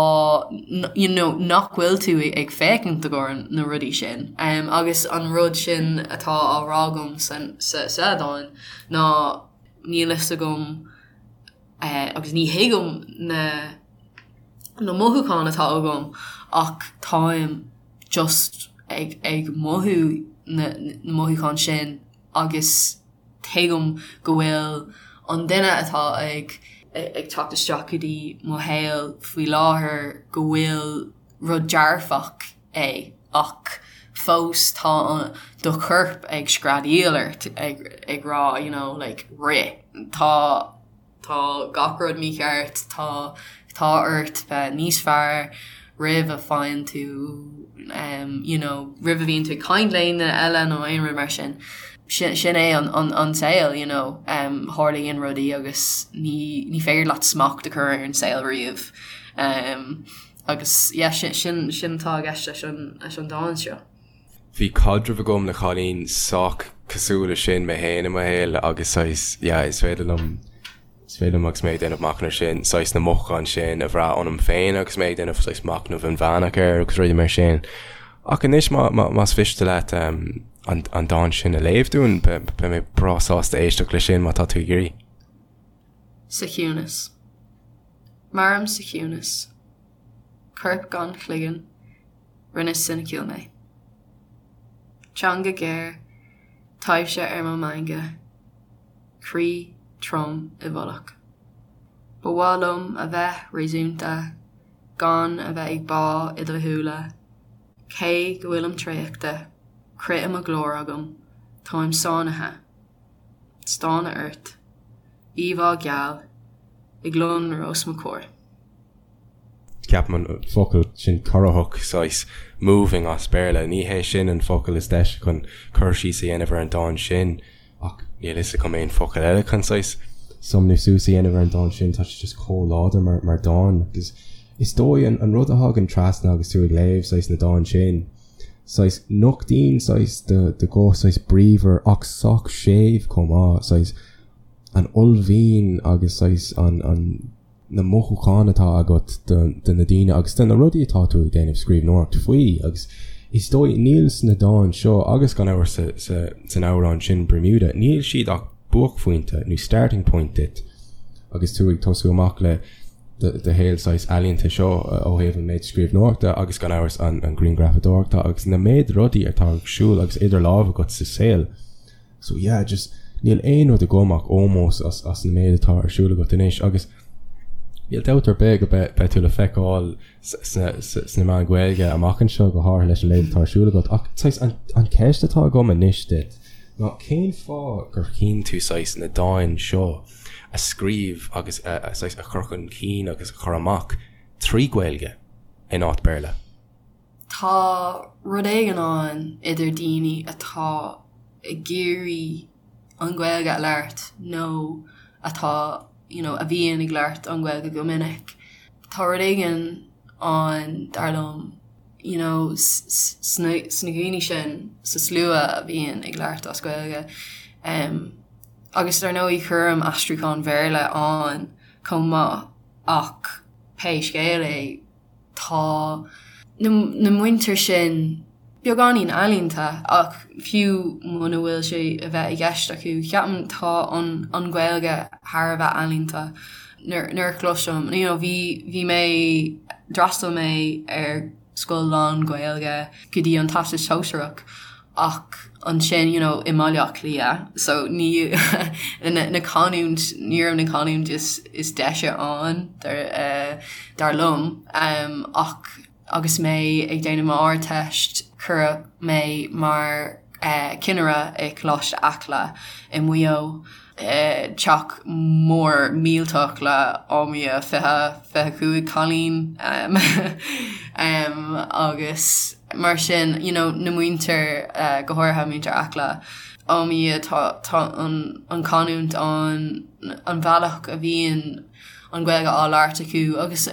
you know nach bhfuil tú ag féachaint i gcomhair na rudaí sin. Agus an rud sin atá á rá agam san sa sa dán ná níl fhios agam agus ní thuigim na na mothúcháin atá agam ach táim just ag ag mothú na na mothúcháin sin agus tuigim go bhfuil an duine atá ag ag teacht isteach go dtí mo shaol faoi láthair go bhfuil rud dearfach é ach fós tá do chorp ag screadaíl ort ag ag rá you know like rith tá Tá gach rud mícheart, tá tá ort bheith níos fearr roimh a faigheann tú you know roimh a bhíonn tú ag caint le aon duine eile nó aon rud mar sin. Sin sin é an an an saol you know tarlaíonn rudaí agus ní ní féidir leat smacht a chur ar an saol riamh. Agus yeah sin sin sin atá i gceist leis an leis an dán seo. Bhí caidreamh agam le cailín sách cosúil le sin mé féin i mo shaol agus saghas, yeah, is féidir liom, is féidir liom agus mé ag déanamh machnamh sin, saghas na mothúcháin sin a bhrath ionam féin agus mé ag déanamh saghas machnamh inmheánach air agus rudaí mar sin. Ach anois má, má, más mhiste leat um, an, an dán sin a léamh dúinn, beidh mé breá sásta éisteacht le sin má tá tú ag iarraidh. Sa chiúnas. Mairim sa chiúnas. Corp gan chloigeann. Rinne soiniciúil mé. Teanga ghéar, taibhse ar mo mheangadh, croí trom i bhfolach. Ba mhaith liom a bheith réasúnta, gan a bheith ag bá i do shúile. Cé go bhfuilim traochta, crith i mo ghlór agam, táim sáinnithe. Stánadh ort. Íomhá gheal ag lonrú os mo chomhair. Ceapaim an focal sin corraitheach, saghas moving as Béarla, ní hé sin an focal is deise chun cur síos a dhéanamh ar an dán sin ach níl fhios agam aon focal eile chun saghas sumnú suas a dhéanamh ar an dán sin, tá sé just chomh láidir mar mar dán agus is dóigh an an rud a thagann trasna agus tú ag léamh saghas na dán sin, saghas nochtaíonn saghas do do ghuth saghas bríomhar ach sách séimh chomh maith, saghas an uaillmhian agus saghas an an na mothúcháin atá agat do na daoine agus do na rudaí atá tú ag déanamh scríbhneoireacht faoi agus is dóigh níl sna dáin seo agus gan amhras san amhrán sin Bermuda, níl siad ach buaicphointe nó starting point duit agus tú ag tosú amach le do shaol saghas ealaíonta seo ó thaobh an méid scríbhneoireachta agus gan amhras an grianghrafadóireachta agus na méid rudaí atá ag siúl agus idir lámh agat sa saol. So yeah, just níl aon rud agam ach ómós as as na méid atá ar siúl agat anois agus níl dabht ar bith go beidh beidh tú le feiceáil sna sna meáin Ghaeilge amach anseo go háirithe leis an méid atá ar siúl agat ach saghas an an ceist atá agam anois duit ná cén fáth gur chinn tú saghas na dáin seo a scríobh agus a a saghas a chur chun cinn agus a chur amach trí Ghaeilge in áit Béarla? Tá rud éigin ann idir daoine atá ag iarraidh an Ghaeilge a labhairt nó atá you know a bhíonn ag labhairt an Ghaeilge go minic. Tá rud éigin ann, dar liom, you know sna daoine sin sa slua a bhíonn ag labhairt as Gaeilge. Agus dar ndóigh cuirim aistriúchán Bhéarla ann chomh maith ach pé scéal é, Tá na muintir sin beagáinín ealaíonta ach fiú muna bhfuil sé a bheith i gceist acu, ceapaim tá an an Ghaeilge thar a bheith ealaíonta. Nuair a chloisim, you know, bhí bhí mé, d'fhreastail mé ar scoil lán-Ghaeilge go dtí an Teastas Sóisearach ach ansin you know i mBaile Átha Cliath so ní na canúint ní raibh na canúint is is deise ann dar dar liom ach agus mé ag déanamh m'Ardteist cuireadh mé mar cinnire i Coláiste Acla i Maigh Eo. Teach mór millteach le ámaí 20, 25 cailín agus mar sin you know na muintir go háirithe muintir Acla ámaí tá tá an an canúint ann an bhealach a bhíonn an Ghaeilge á labhairt acu agus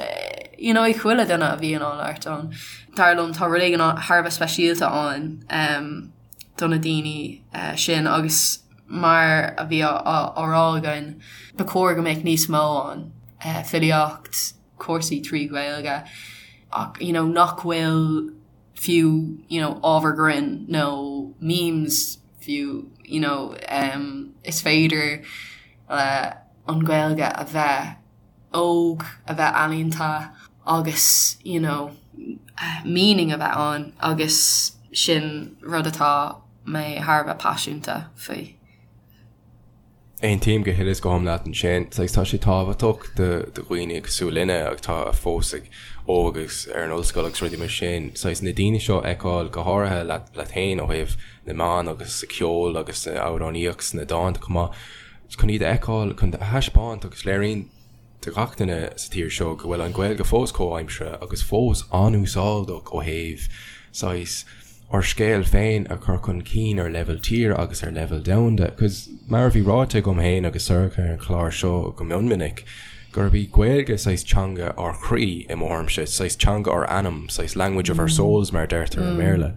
you know ag chuile duine a bhíonn á labhairt ann. Dar liom tá rud éigin thar a bheith speisialta ann do na daoine sin agus mar a bhí á rá againn, ba chóir go mbeadh níos mó ann, filíocht, cúrsaí trí Ghaeilge ach you know nach bhfuil fiú you know ábhar grinn nó memes fiú you know is féidir le an Ghaeilge a bheith óg, a bheith ealaíonta agus you know meaning a bheith ann agus sin rud atá mé thar a bheith paiseanta faoi. Aontaím go huile is go hiomlán leat ansin. Saghas tá sé tábhachtach do dhaoine cosúil linne atá fós ag óg agus ar an ollscoil agus rudaí mar sin, saghas na daoine seo a fheiceáil go háirithe leat leat féin ó thaobh na meán agus sa cheol agus san amhránaíocht sna dánta chomh maith, chun iad a fheiceáil, chun a thaispeáint agus léiríonn do gach duine sa tír seo go bhfuil an Ghaeilge fós comhaimseartha agus fós an-úsáideach ó thaobh saghas ár scéal féin a chur chun cinn ar leibhéal tíre agus ar leibhéal domhanda. Cos mar a bhí ráite agam féin agus Sorcha ar an chlár seo go mion minic, gurb í Gaeilge saghas teanga ár chroí i mo thuairimse, saghas teanga ár anam, saghas language of our souls mar a deirtear i mBéarla.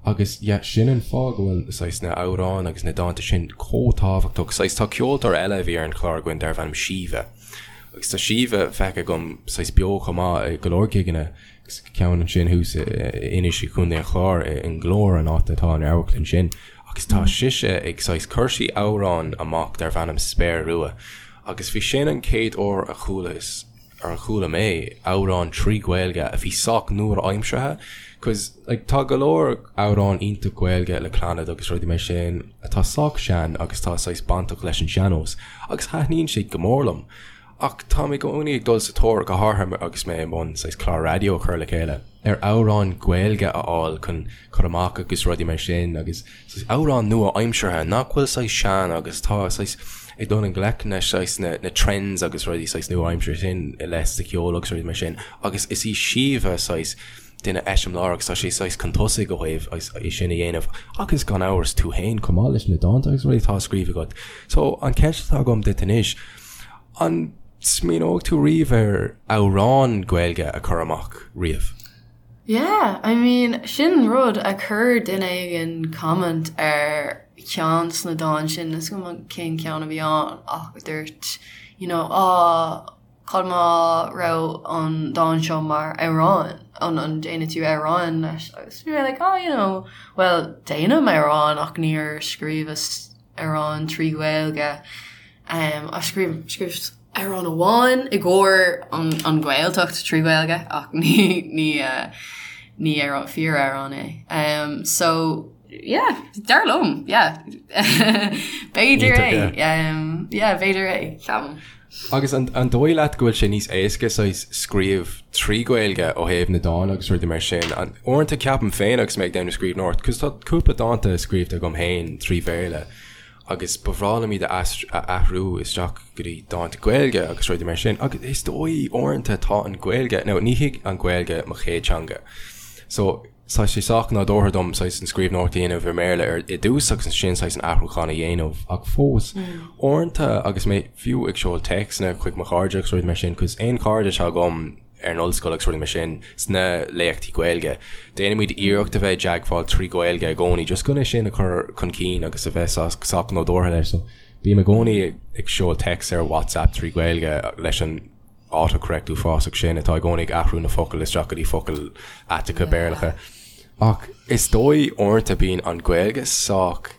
Agus yeah, sin an fáth go bhfuil saghas na amhráin agus na dánta sin chomh tábhachtach. Saghas tá ceoltóir eile a bhí ar an chlár againn darbh ainm Síomha. Agus tá Síomha feicthe agam saghas beo chomh maith i go leor gigeanna agus ceann ansin thuas in Inis i Contae an Chláir i nGlór an áit atá an amharclann sin. Agus tá sise ag saghas chuir sí amhrán amach darbh ainm Spéir Rua. Agus bhí sin an chéad uair a chualas ar a chuala mé amhrán trí Ghaeilge a bhí sách nua-aimseartha cos like tá go leor amhrán iontach Gaeilge le Clannad agus rudaí mar sin atá sách sean agus tá saghas bainteach leis an sean-nós agus thaitníonn siad go mór liom. Ach táim i gcónaí ag dul sa tóir, go háirithe agus mé i mbun saghas clár raidió a chur le chéile, ar amhráin Ghaeilge a fháil chun cur amach agus rudaí mar sin agus saghas amhráin nua-aimseartha nach bhfuil saghas sean agus tá saghas ag dul i ngleic le saghas na na trends agus rudaí saghas nua-aimseartha sin i leith sa cheol agus rudaí mar sin agus is í Síomha saghas duine eiseamláireach agus tá sí saghas chun tosaigh ó thaobh é sin a dhéanamh agus gan amhras tú féin chomh maith leis na dánta agus rudaí atá á scríobh agat. So an ceist atá agam duit anois, An smaoineoidh tú riamh ar amhrán Gaeilge a chur amach riamh? Yeah, I mean, sin rud a chuir duine éigin comment ar cheann de na dáin sin, níl 'fhios agam cén ceann a bhí ann ach dúirt, you know, ah, cad má raibh an dán seo mar amhrán, an an déanfaidh tú amhrán leis? Agus bhí mé like, oh, you know, well, déanaim amhrán ach níor scríobhas amhrán trí Ghaeilge. Ach scríobh, scríobhas amhrán amháin i gcomhair an, an Ghaeltacht trí Ghaeilge ach ní, ní, ní amhrán, fíor-amhrán é. So, yeah, dar liom, yeah. B'fhéidir é. Yeah, b'fhéidir é, ceapaim. Agus an an dóigh leat go bhfuil sé níos éasca saghas scríobh trí Ghaeilge ó thaobh na dán agus rudaí mar sin? Uaireanta ceapaim féin agus mé ag déanamh scríbhneoireacht, 'cause tá cúpla dánta scríobhta agam féin trí Bhéarla agus ba bhreá liom iad a a athrú isteach go dtí dánta Gaeilge agus rudaí mar sin agus is dóigh uaireanta tá an Ghaeilge, now ní hí an Ghaeilge mo chéad teanga so tá sé sách nádúrtha dom saghas an scríbhneoireacht a dhéanamh i mBéarla ar i dtús agus ansin saghas an athrúchán a dhéanamh ach fós uaireanta agus mé fiú ag seoladh téacsanna chuig mo chairde agus rudaí mar sin 'cause aon chairde atá agam ar an ollscoil agus rudaí mar sin sna léachtaí Gaeilge déanaimid iarracht a bheith i dteagmháil trí Ghaeilge i gcónaí just chun é sin a chur chun cinn agus a bheith sách nádúrtha leis so bím i gcónaí ag seoladh téacs ar WhatsApp trí Ghaeilge leis an autocorrect uafásach sin atá i gcónaí ag athrú na focail isteach go dtí focail aiteacha Béarlacha. Ach is dóigh uaireanta bíonn an Ghaeilge sách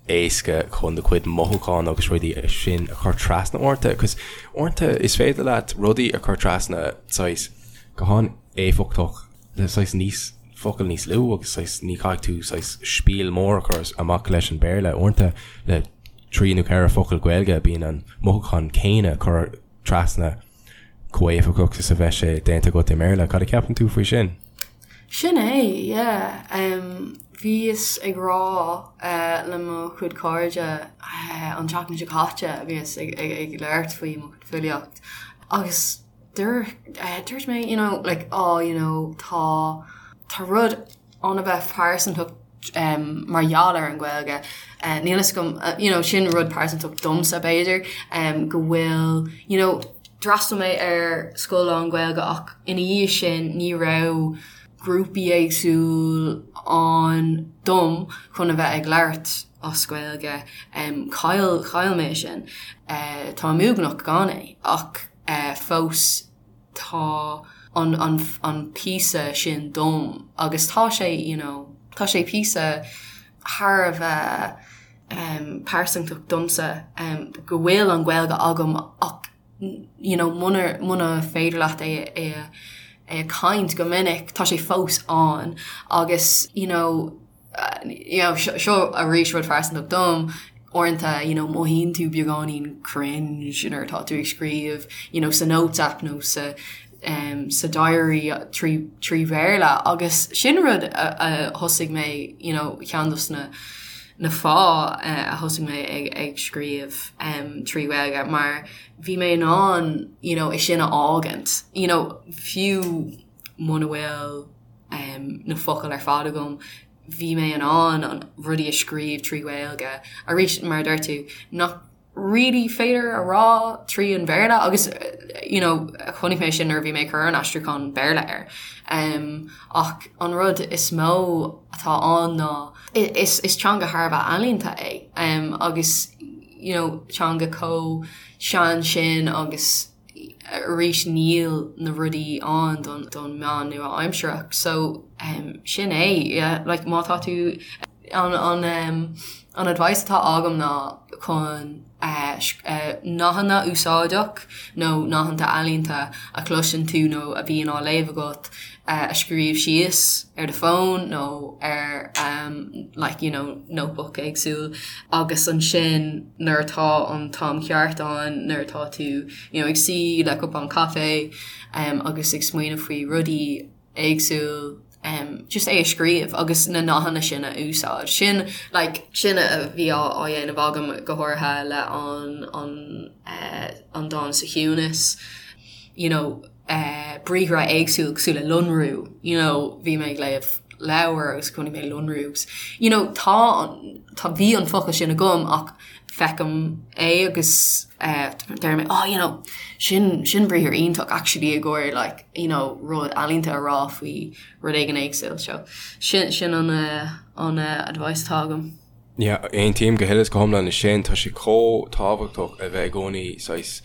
éasca chun do chuid mothúchán agus rudaí sin a chur trasna uaireanta, 'cause uaireanta is féidir leat rudaí a chur trasna saghas go han-éifeachtach le saghas níos focail níos lú agus saghas ní chaithfidh tú saghas spiel mór a chur amach leis an Béarla. Uaireanta le trí nó ceithre focal Gaeilge bíonn an mothúchán céanna curtha trasna chomh héifeachtach is a bheadh sé déanta agat i mBéarla. Cad a cheapann tú faoi sin? Sin é, yeah. Bhíos ag rá le mo chuid cairde an tseachtain seo caite, bhíos ag labhairt faoi mo chuid filíocht agus dúirt mé, you know, like, oh, you know, tá, tá rud an-bheith pearsantach mar gheall ar an Ghaeilge. Níl fhios agam, you know, sin rud pearsantach domsa b'fhéidir, go bhfuil, you know, d'fhreastail mé ar scoil lán-Ghaeilge ach ina dhiaidh sin ní raibh grúpaí éagsúil ann dom chun a bheith ag labhairt as Gaeilge. Chaill, chaill mé sin. Táim uaigneach gan é ach fós tá an, an, an píosa sin dom agus tá sé, you know, tá sé píosa thar a bheith pearsantach domsa go bhfuil an Ghaeilge agam ach you know muna, muna féidir leat é, é a, é a caint go minic tá sé fós ann agus you know you know seo arís rud phearsantach dom, uaireanta you know mothaíonn tú beagáinín cringe nuair atá tú ag scríobh you know sa notes app nó sa um, sa diary trí, trí Bhéarla agus sin rud a, a thosaigh mé you know ceann dos na na fáth uh, a thosaigh mé ag, ag scríobh um, trí Ghaeilge mar bhí mé in ann you know, é sin a fhágaint you know, fiú muna bhfuil um, na focail ar fad agam, bhí mé in ann an rudaí a scríobh trí Ghaeilge. Arís, mar a dúirt tú, nach really féidir a rá trí an Bhéarla agus you know, chonaic mé sin nuair a bhí mé ag cur an aistriúchán Béarla air. Um, ach an rud is mó atá ann ná is, is teanga thar a bheith ealaíonta é um, agus you know, teanga chomh sean sin agus arís níl na rudaí ann don don meán nua-aimsearach so um, sin é yeah, like, má tá tú an, an, um, an advice atá agam ná chun uh, uh, nathanna úsáideach nó nathanna ealaíonta a chloiseann tú nó a bhíonn á léamh agat. a scríobh síos ar do fón nó ar like you know notebook éagsúil agus ansin nuair atá an t-am ceart ann nuair atá tú you know ag suí le cupán caife agus ag smaoineamh faoi rudaí éagsúil just é a scríobh agus na nathanna sin a úsáid. Sin like sin a bhí á á dhéanamh agam go háirithe le an an an dán sa chiúnas you know briathra éagsúil cosúil le lonrú, you know, bhí mé ag léamh leabhar agus chonaic mé lonrú agus, you know, tá, tá, bhí an focal sin agam ach feicim é agus deir mé, oh, you know, sin, sin briathar iontach actually i gcomhair like, you know, rud ealaíonta a rá faoi rud éigin éagsúil. So, sin, sin an, an advice atá agam. Yeah, aontaím go huile is go hiomlán leis sin. Tá sé chomh tábhachtach a bheith i gcónaí saghas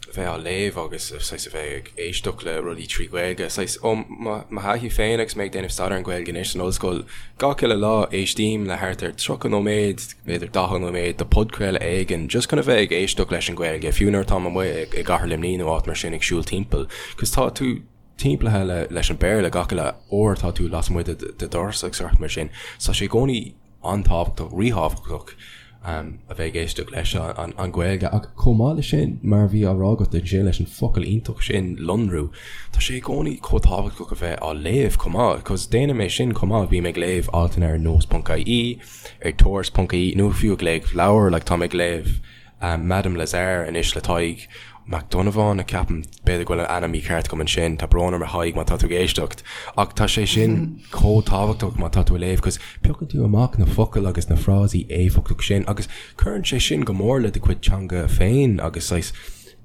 a bheith á léamh agus saghas a bheith ag éisteacht le rudaí trí Ghaeilge. Saghas ó mo thaithí féin agus mé ag déanamh staidéar ar an Ghaeilge anois san ollscoil, gach uile lá éistím le thart ar 30 nóiméad, b'fhéidir 40 nóiméad de podchraoladh éigin just chun a bheith ag éisteacht leis an Ghaeilge, fiú nuair atáim amuigh i gCathair Luimnigh nó áit mar sin ag siúl timpeall. Cos tá tú timpeallaithe leis an Béarla gach uile uair atá tú lasmuigh de do dhoras agus rudaí mar sin. So tá sé i gcónaí an-tábhachtach, ríthábhachtach a bheith ag éisteacht leis an Ghaeilge. Ach chomh maith leis sin, mar a bhí á rá agat ansin leis an focal iontach sin, lonrú, tá sé i gcónaí chomh tábhachtach a bheith á léamh chomh maith, cos déanaim é sin chomh maith, bím ag léamh altanna ar nós.ie, ar tuairisc.ie nó fiú ag léamh leabhar, like táim ag léamh Madame Lazare anois le Tadhg Mac Donnabháin, ceapaim, b'fhéidir go bhfuil an ainm mícheart agam ansin, tá brón orm a Thaidhg má tá tú ag éisteacht, ach tá sé sin chomh tábhachtach má tá tú ag léamh cos piocann tú amach na focail agus na frásaí éifeachtach sin agus cuireann sé sin go mór le do chuid teanga féin agus saghas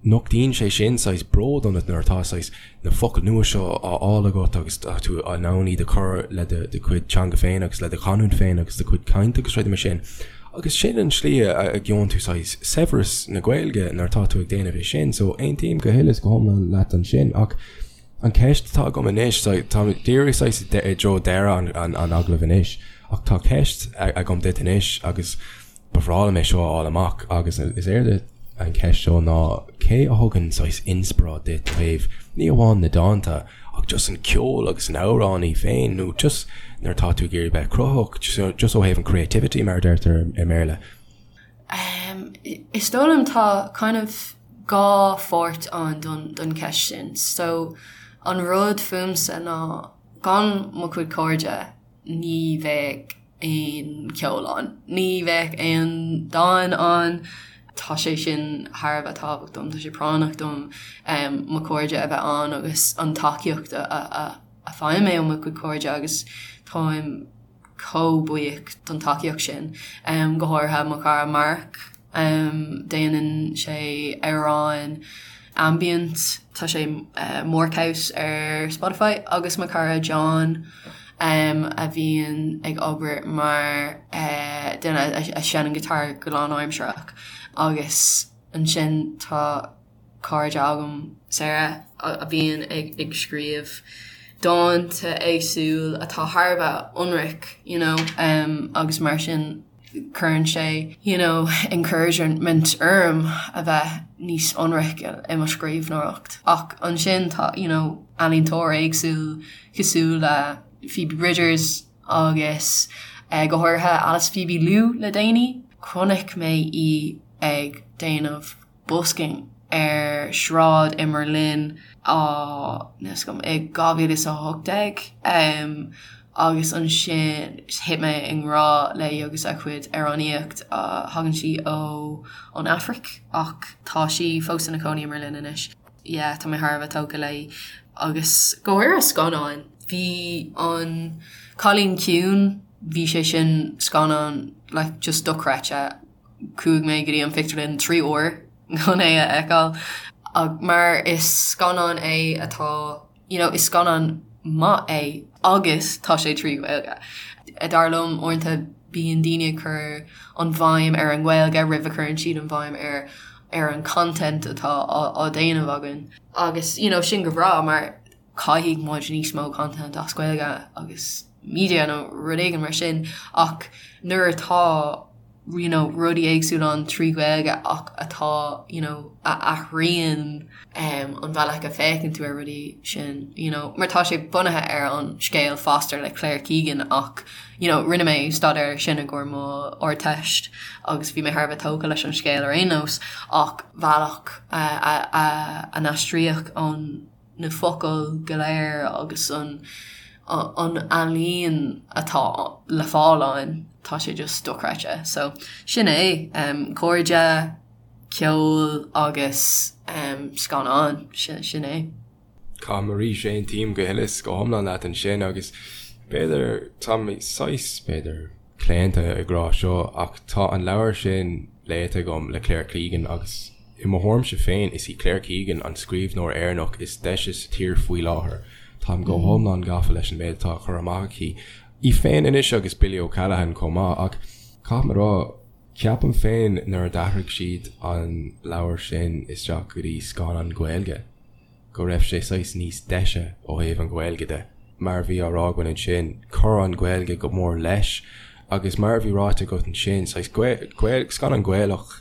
nochtaíonn sé sin saghas bród ionat nuair atá saghas na focail nua seo á fháil agat agus tá tú in ann iad a chur le do chuid teanga féin agus le do chanúint féin agus do chuid cainte agus rudaí mar sin. Agus sin an tslí a gheobhann tú saghas saibhreas na Gaeilge nuair atá tú ag déanamh é sin. So aontaím go huile is go hiomlán leat ansin ach an ceist atá agam anois, tá díreach saghas i dtreo deireadh an agallaimh anois ach tá ceist agam duit anois agus Ba bhreá liom é seo a fháil amach agus is éard an cheist seo ná cé a thugann saghas inspioráid duit ó thaobh ní amháin na dánta ach just an ceol agus an amhránaí féin nó just nuair atá tú ag iarraidh bheith cruthaitheach just ó thaobh an creativity mar a deirtear i mBéarla. Is dóigh liom tá kind of dhá pháirt ann don cheist sin. So an rud fúmsa ná gan mo chuid cairde ní bheadh aon cheol ann. Ní bheadh aon dán ann. Tá sé sin thar a bheith tábhachtach dom, tá sé práinneach dom mo chairde a bheith ann agus an tacaíocht a fhaighim mé ó mo chuid cairde agus táim chomh buíoch don tacaíocht sin, go háirithe mo chara Mark. Déanann sé amhráin ambient, tá sé Markhouse ar Spotify, agus mo chara John a bhíonn ag obair mar duine a sheinneann guitar go lánaimsearach. Agus ansin tá cairde agam, Sarah, a bhíonn ag scríobh dánta éagsúil atá thar a bheith ionraic, you know, agus mar sin. cuireann sé you know encouragement orm a bheith níos ionraice i mo scríbhneoireacht. Ach ansin tá you know ealaíontóir éagsúil cosúil le Phoebe Bridgers agus go háirithe Alice Phoebe Lou le déanaí. Chonaic mé í ag déanamh busking ar sráid i mBerlin á níl a fhios agam i 2018 agus ansin thit mé i ngrá léi agus a cuid amhránaíocht. Thagann sí ó ón Afraic ach tá sí fós ina cónaí i mBerlin anois. Yeah tá mé thar a bheith tógtha léi agus go háirithe scannáin. Bhí an Cailín Ciúin, bhí sé sin scannán like just dochreidte. Chuaigh mé go dtí an phictiúrlann 3 uair chun é a fheiceáil mar is scannán é atá you know is scannán maith é agus tá sé trí Ghaeilge. Dar liom uaireanta bíonn daoine ag cur an bhéim ar an nGaeilge roimh a chuireann siad an bhéim ar ar an content atá á déanamh againn. Agus you know sin go breá mar caithfidh muid níos mó content as Gaeilge agus media nó rud éigin mar sin ach nuair atá. you know rudaí éagsúla ann 3 Ghaeilge ach atá you know a athraíonn um an bhealach a féachann tú ar rudaí sin you know mar tá sé bunaithe ar an scéal Foster le Claire Keegan ach you know rinne mé staidéar ar sin i gcomhair mo Ardteist agus bhí mé thar a bheith tógtha leis an scéal ar aon nós ach bhealach a a a a n-aistríodh an na focail go léir agus an an ealaín atá le fáil ann, tá sé just dochreidte. So sin é, um, cairde, ceol agus um, scannáin, sin, sin é. Caithfidh mé arís, aontaím go huile is go hiomlán leat ansin agus b'fhéidir, tá mé saghas, b'fhéidir, claonta ag rá seo ach tá an leabhar sin léite agam le Claire Keegan agus i mo thuairimse féin is í Claire Keegan an scríbhneoir Éireannach is deise sa tír faoi láthair. Táim go hiomlán gafa leis an méid atá á chur amach aici. Í féin anois agus Billy O'Callaghan chomh maith ach caithfidh mé a rá, ceapaim féin nuair a d'athraigh siad an leabhar sin isteach go dtí scannán Gaeilge, go raibh sé saghas níos deise ó thaobh an Ghaeilge de. Mar a bhí á rá againn ansin, chuir an Ghaeilge go mór leis agus mar a bhí ráite agat ansin, saghas scannán Gaelach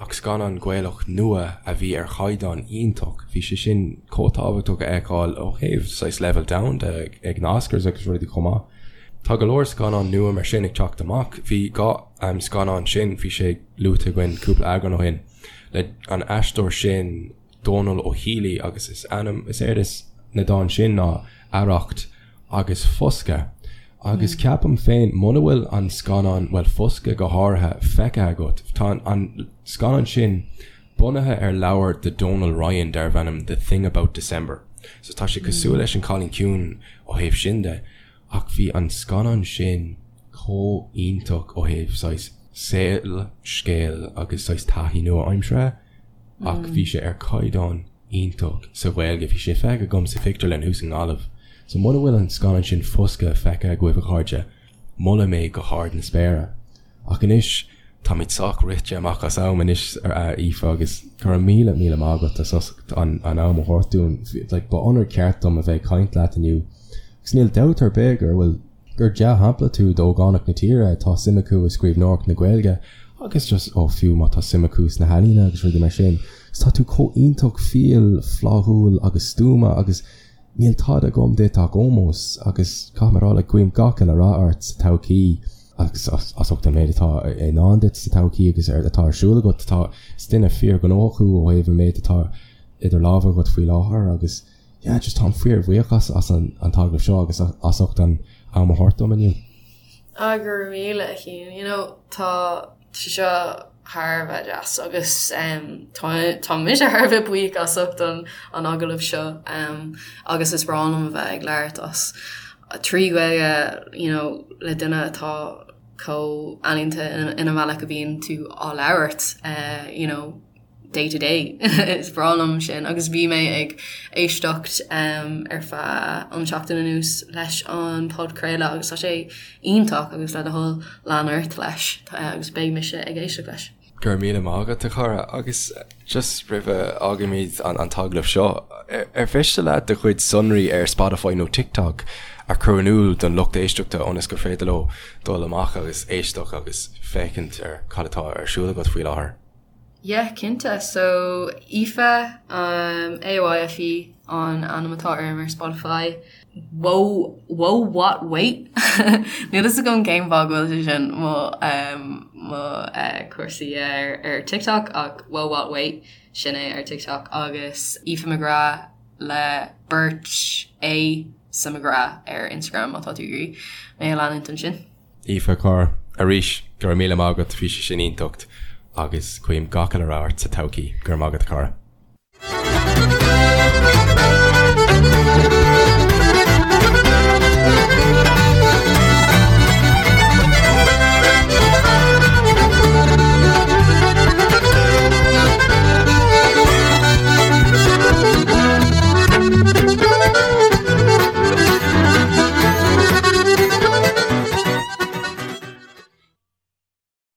ach scannán Gaelach nua a bhí ar chaighdeán iontach. Bhí sé sin chomh tábhachtach a fheiceáil ó thaobh saghas leibhéal domhanda ag na Oscars agus rudaí chomh maith. Tá go leor scannán nua mar sin ag teacht amach. Bhí an scannán sin, bhí sé luaite againn cúpla eagrán ó shin, le an aisteoir sin, Dónal Ó Héalaí agus is ainm, is éard is na dán sin ná Arracht agus Foscadh. Agus ceapaim féin, muna bhfuil an scannán, bhuel Foscadh go háirithe, feicthe agat, tá an scannán sin bunaithe ar leabhar de Donal Ryan darbh ainm The Thing About December. So tá sé cosúil leis An Cailín Ciúin ó thaobh sin de, ach bhí an scannán sin chomh iontach ó thaobh saghas saol, scéal agus saghas taithí nua-aimseartha. ach bhí sé ar caighdeán iontach sa Ghaeilge. Bhí sé feicthe agam sa phictiúrlann thuas i nGaillimh. So muna bhfuil an scannán sin Foscadh feicthe agaibh a chairde, molaim é go hard na spéire. Ach anois, táimid sách rite amach as am anois a Aoife agus go raibh míle míle maith agat as ucht an am a thabhairt dúinn. Like, ba onóir ceart dom a bheith ag caint leat inniu. Agus níl dabht ar bith gur bhfuil gur dea-shampla tú d'ógánaigh na tíre atá suim acu i scríbhneoireacht na Gaeilge agus just, ó, fiú má tá suim acu sna healaíona agus rudaí mar sin. Agus tá tú chomh iontach fial, flaithiúil agus stuama agus níl tada agam duit ach ómós agus caithfidh mé a rá, like, guím gach uile rath ort sa todhchaí agus as ucht an méid atá i ndán duit sa todhchaí agus atá ar siúl agat. Tá, is duine fíorghnóthach thú ó thaobh an méid atá idir lámha agat faoi láthair agus, Yeah, just táim fíorbhuíoch as as an an t-agallamh seo agus as ucht an am a thabhairt dom inniu. Ah, go raibh míle a Chian. You know, tá sé seo thar a bheith deas agus um, tá tá mise thar a bheith buíoch as ucht an an agallamh seo um, agus is breá liom a bheith ag labhairt as 3 Ghaeilge, you know, le duine atá chomh ealaíonta ina ina bhealach a bhíonn tú á labhairt, uh, you know, day to day. Is breá liom sin agus bhí mé ag éisteacht ar feadh an seachtain anuas leis an podchraoladh agus tá sé iontach agus le do thoil lean ort leis agus beidh mise ag éisteacht leis. Go raibh míle maith agat a chara agus just roimh a fhágaimid an t-agallamh seo, ar mhiste leat do chuid sonraí ar Spotify nó TikTok a chur in iúl don lucht éisteachta ionas gur féidir leo dul amach agus éisteacht agus féachaint ar cad atá ar siúl agat faoi láthair? Yeah, cinnte. So, Aoife, um, A-O-I-F-E an ainm atá orm ar Spotify. Whoa, whoa, what, wait? Níl fhios agam cén fáth go bhfuil sé sin mo, um, mo uh, cúrsaí ar, ar TikTok ach whoa, what, wait, sin é ar TikTok agus Aoife McGrath le beirt A sa McGrath ar Instagram má tá tú ag iarraidh mé a leanúint ansin. Aoife, a chara, arís, go raibh míle maith agat, bhí sé sin iontach agus guím gach uile rath ort sa todhchaí. Go raibh maith agat, a chara.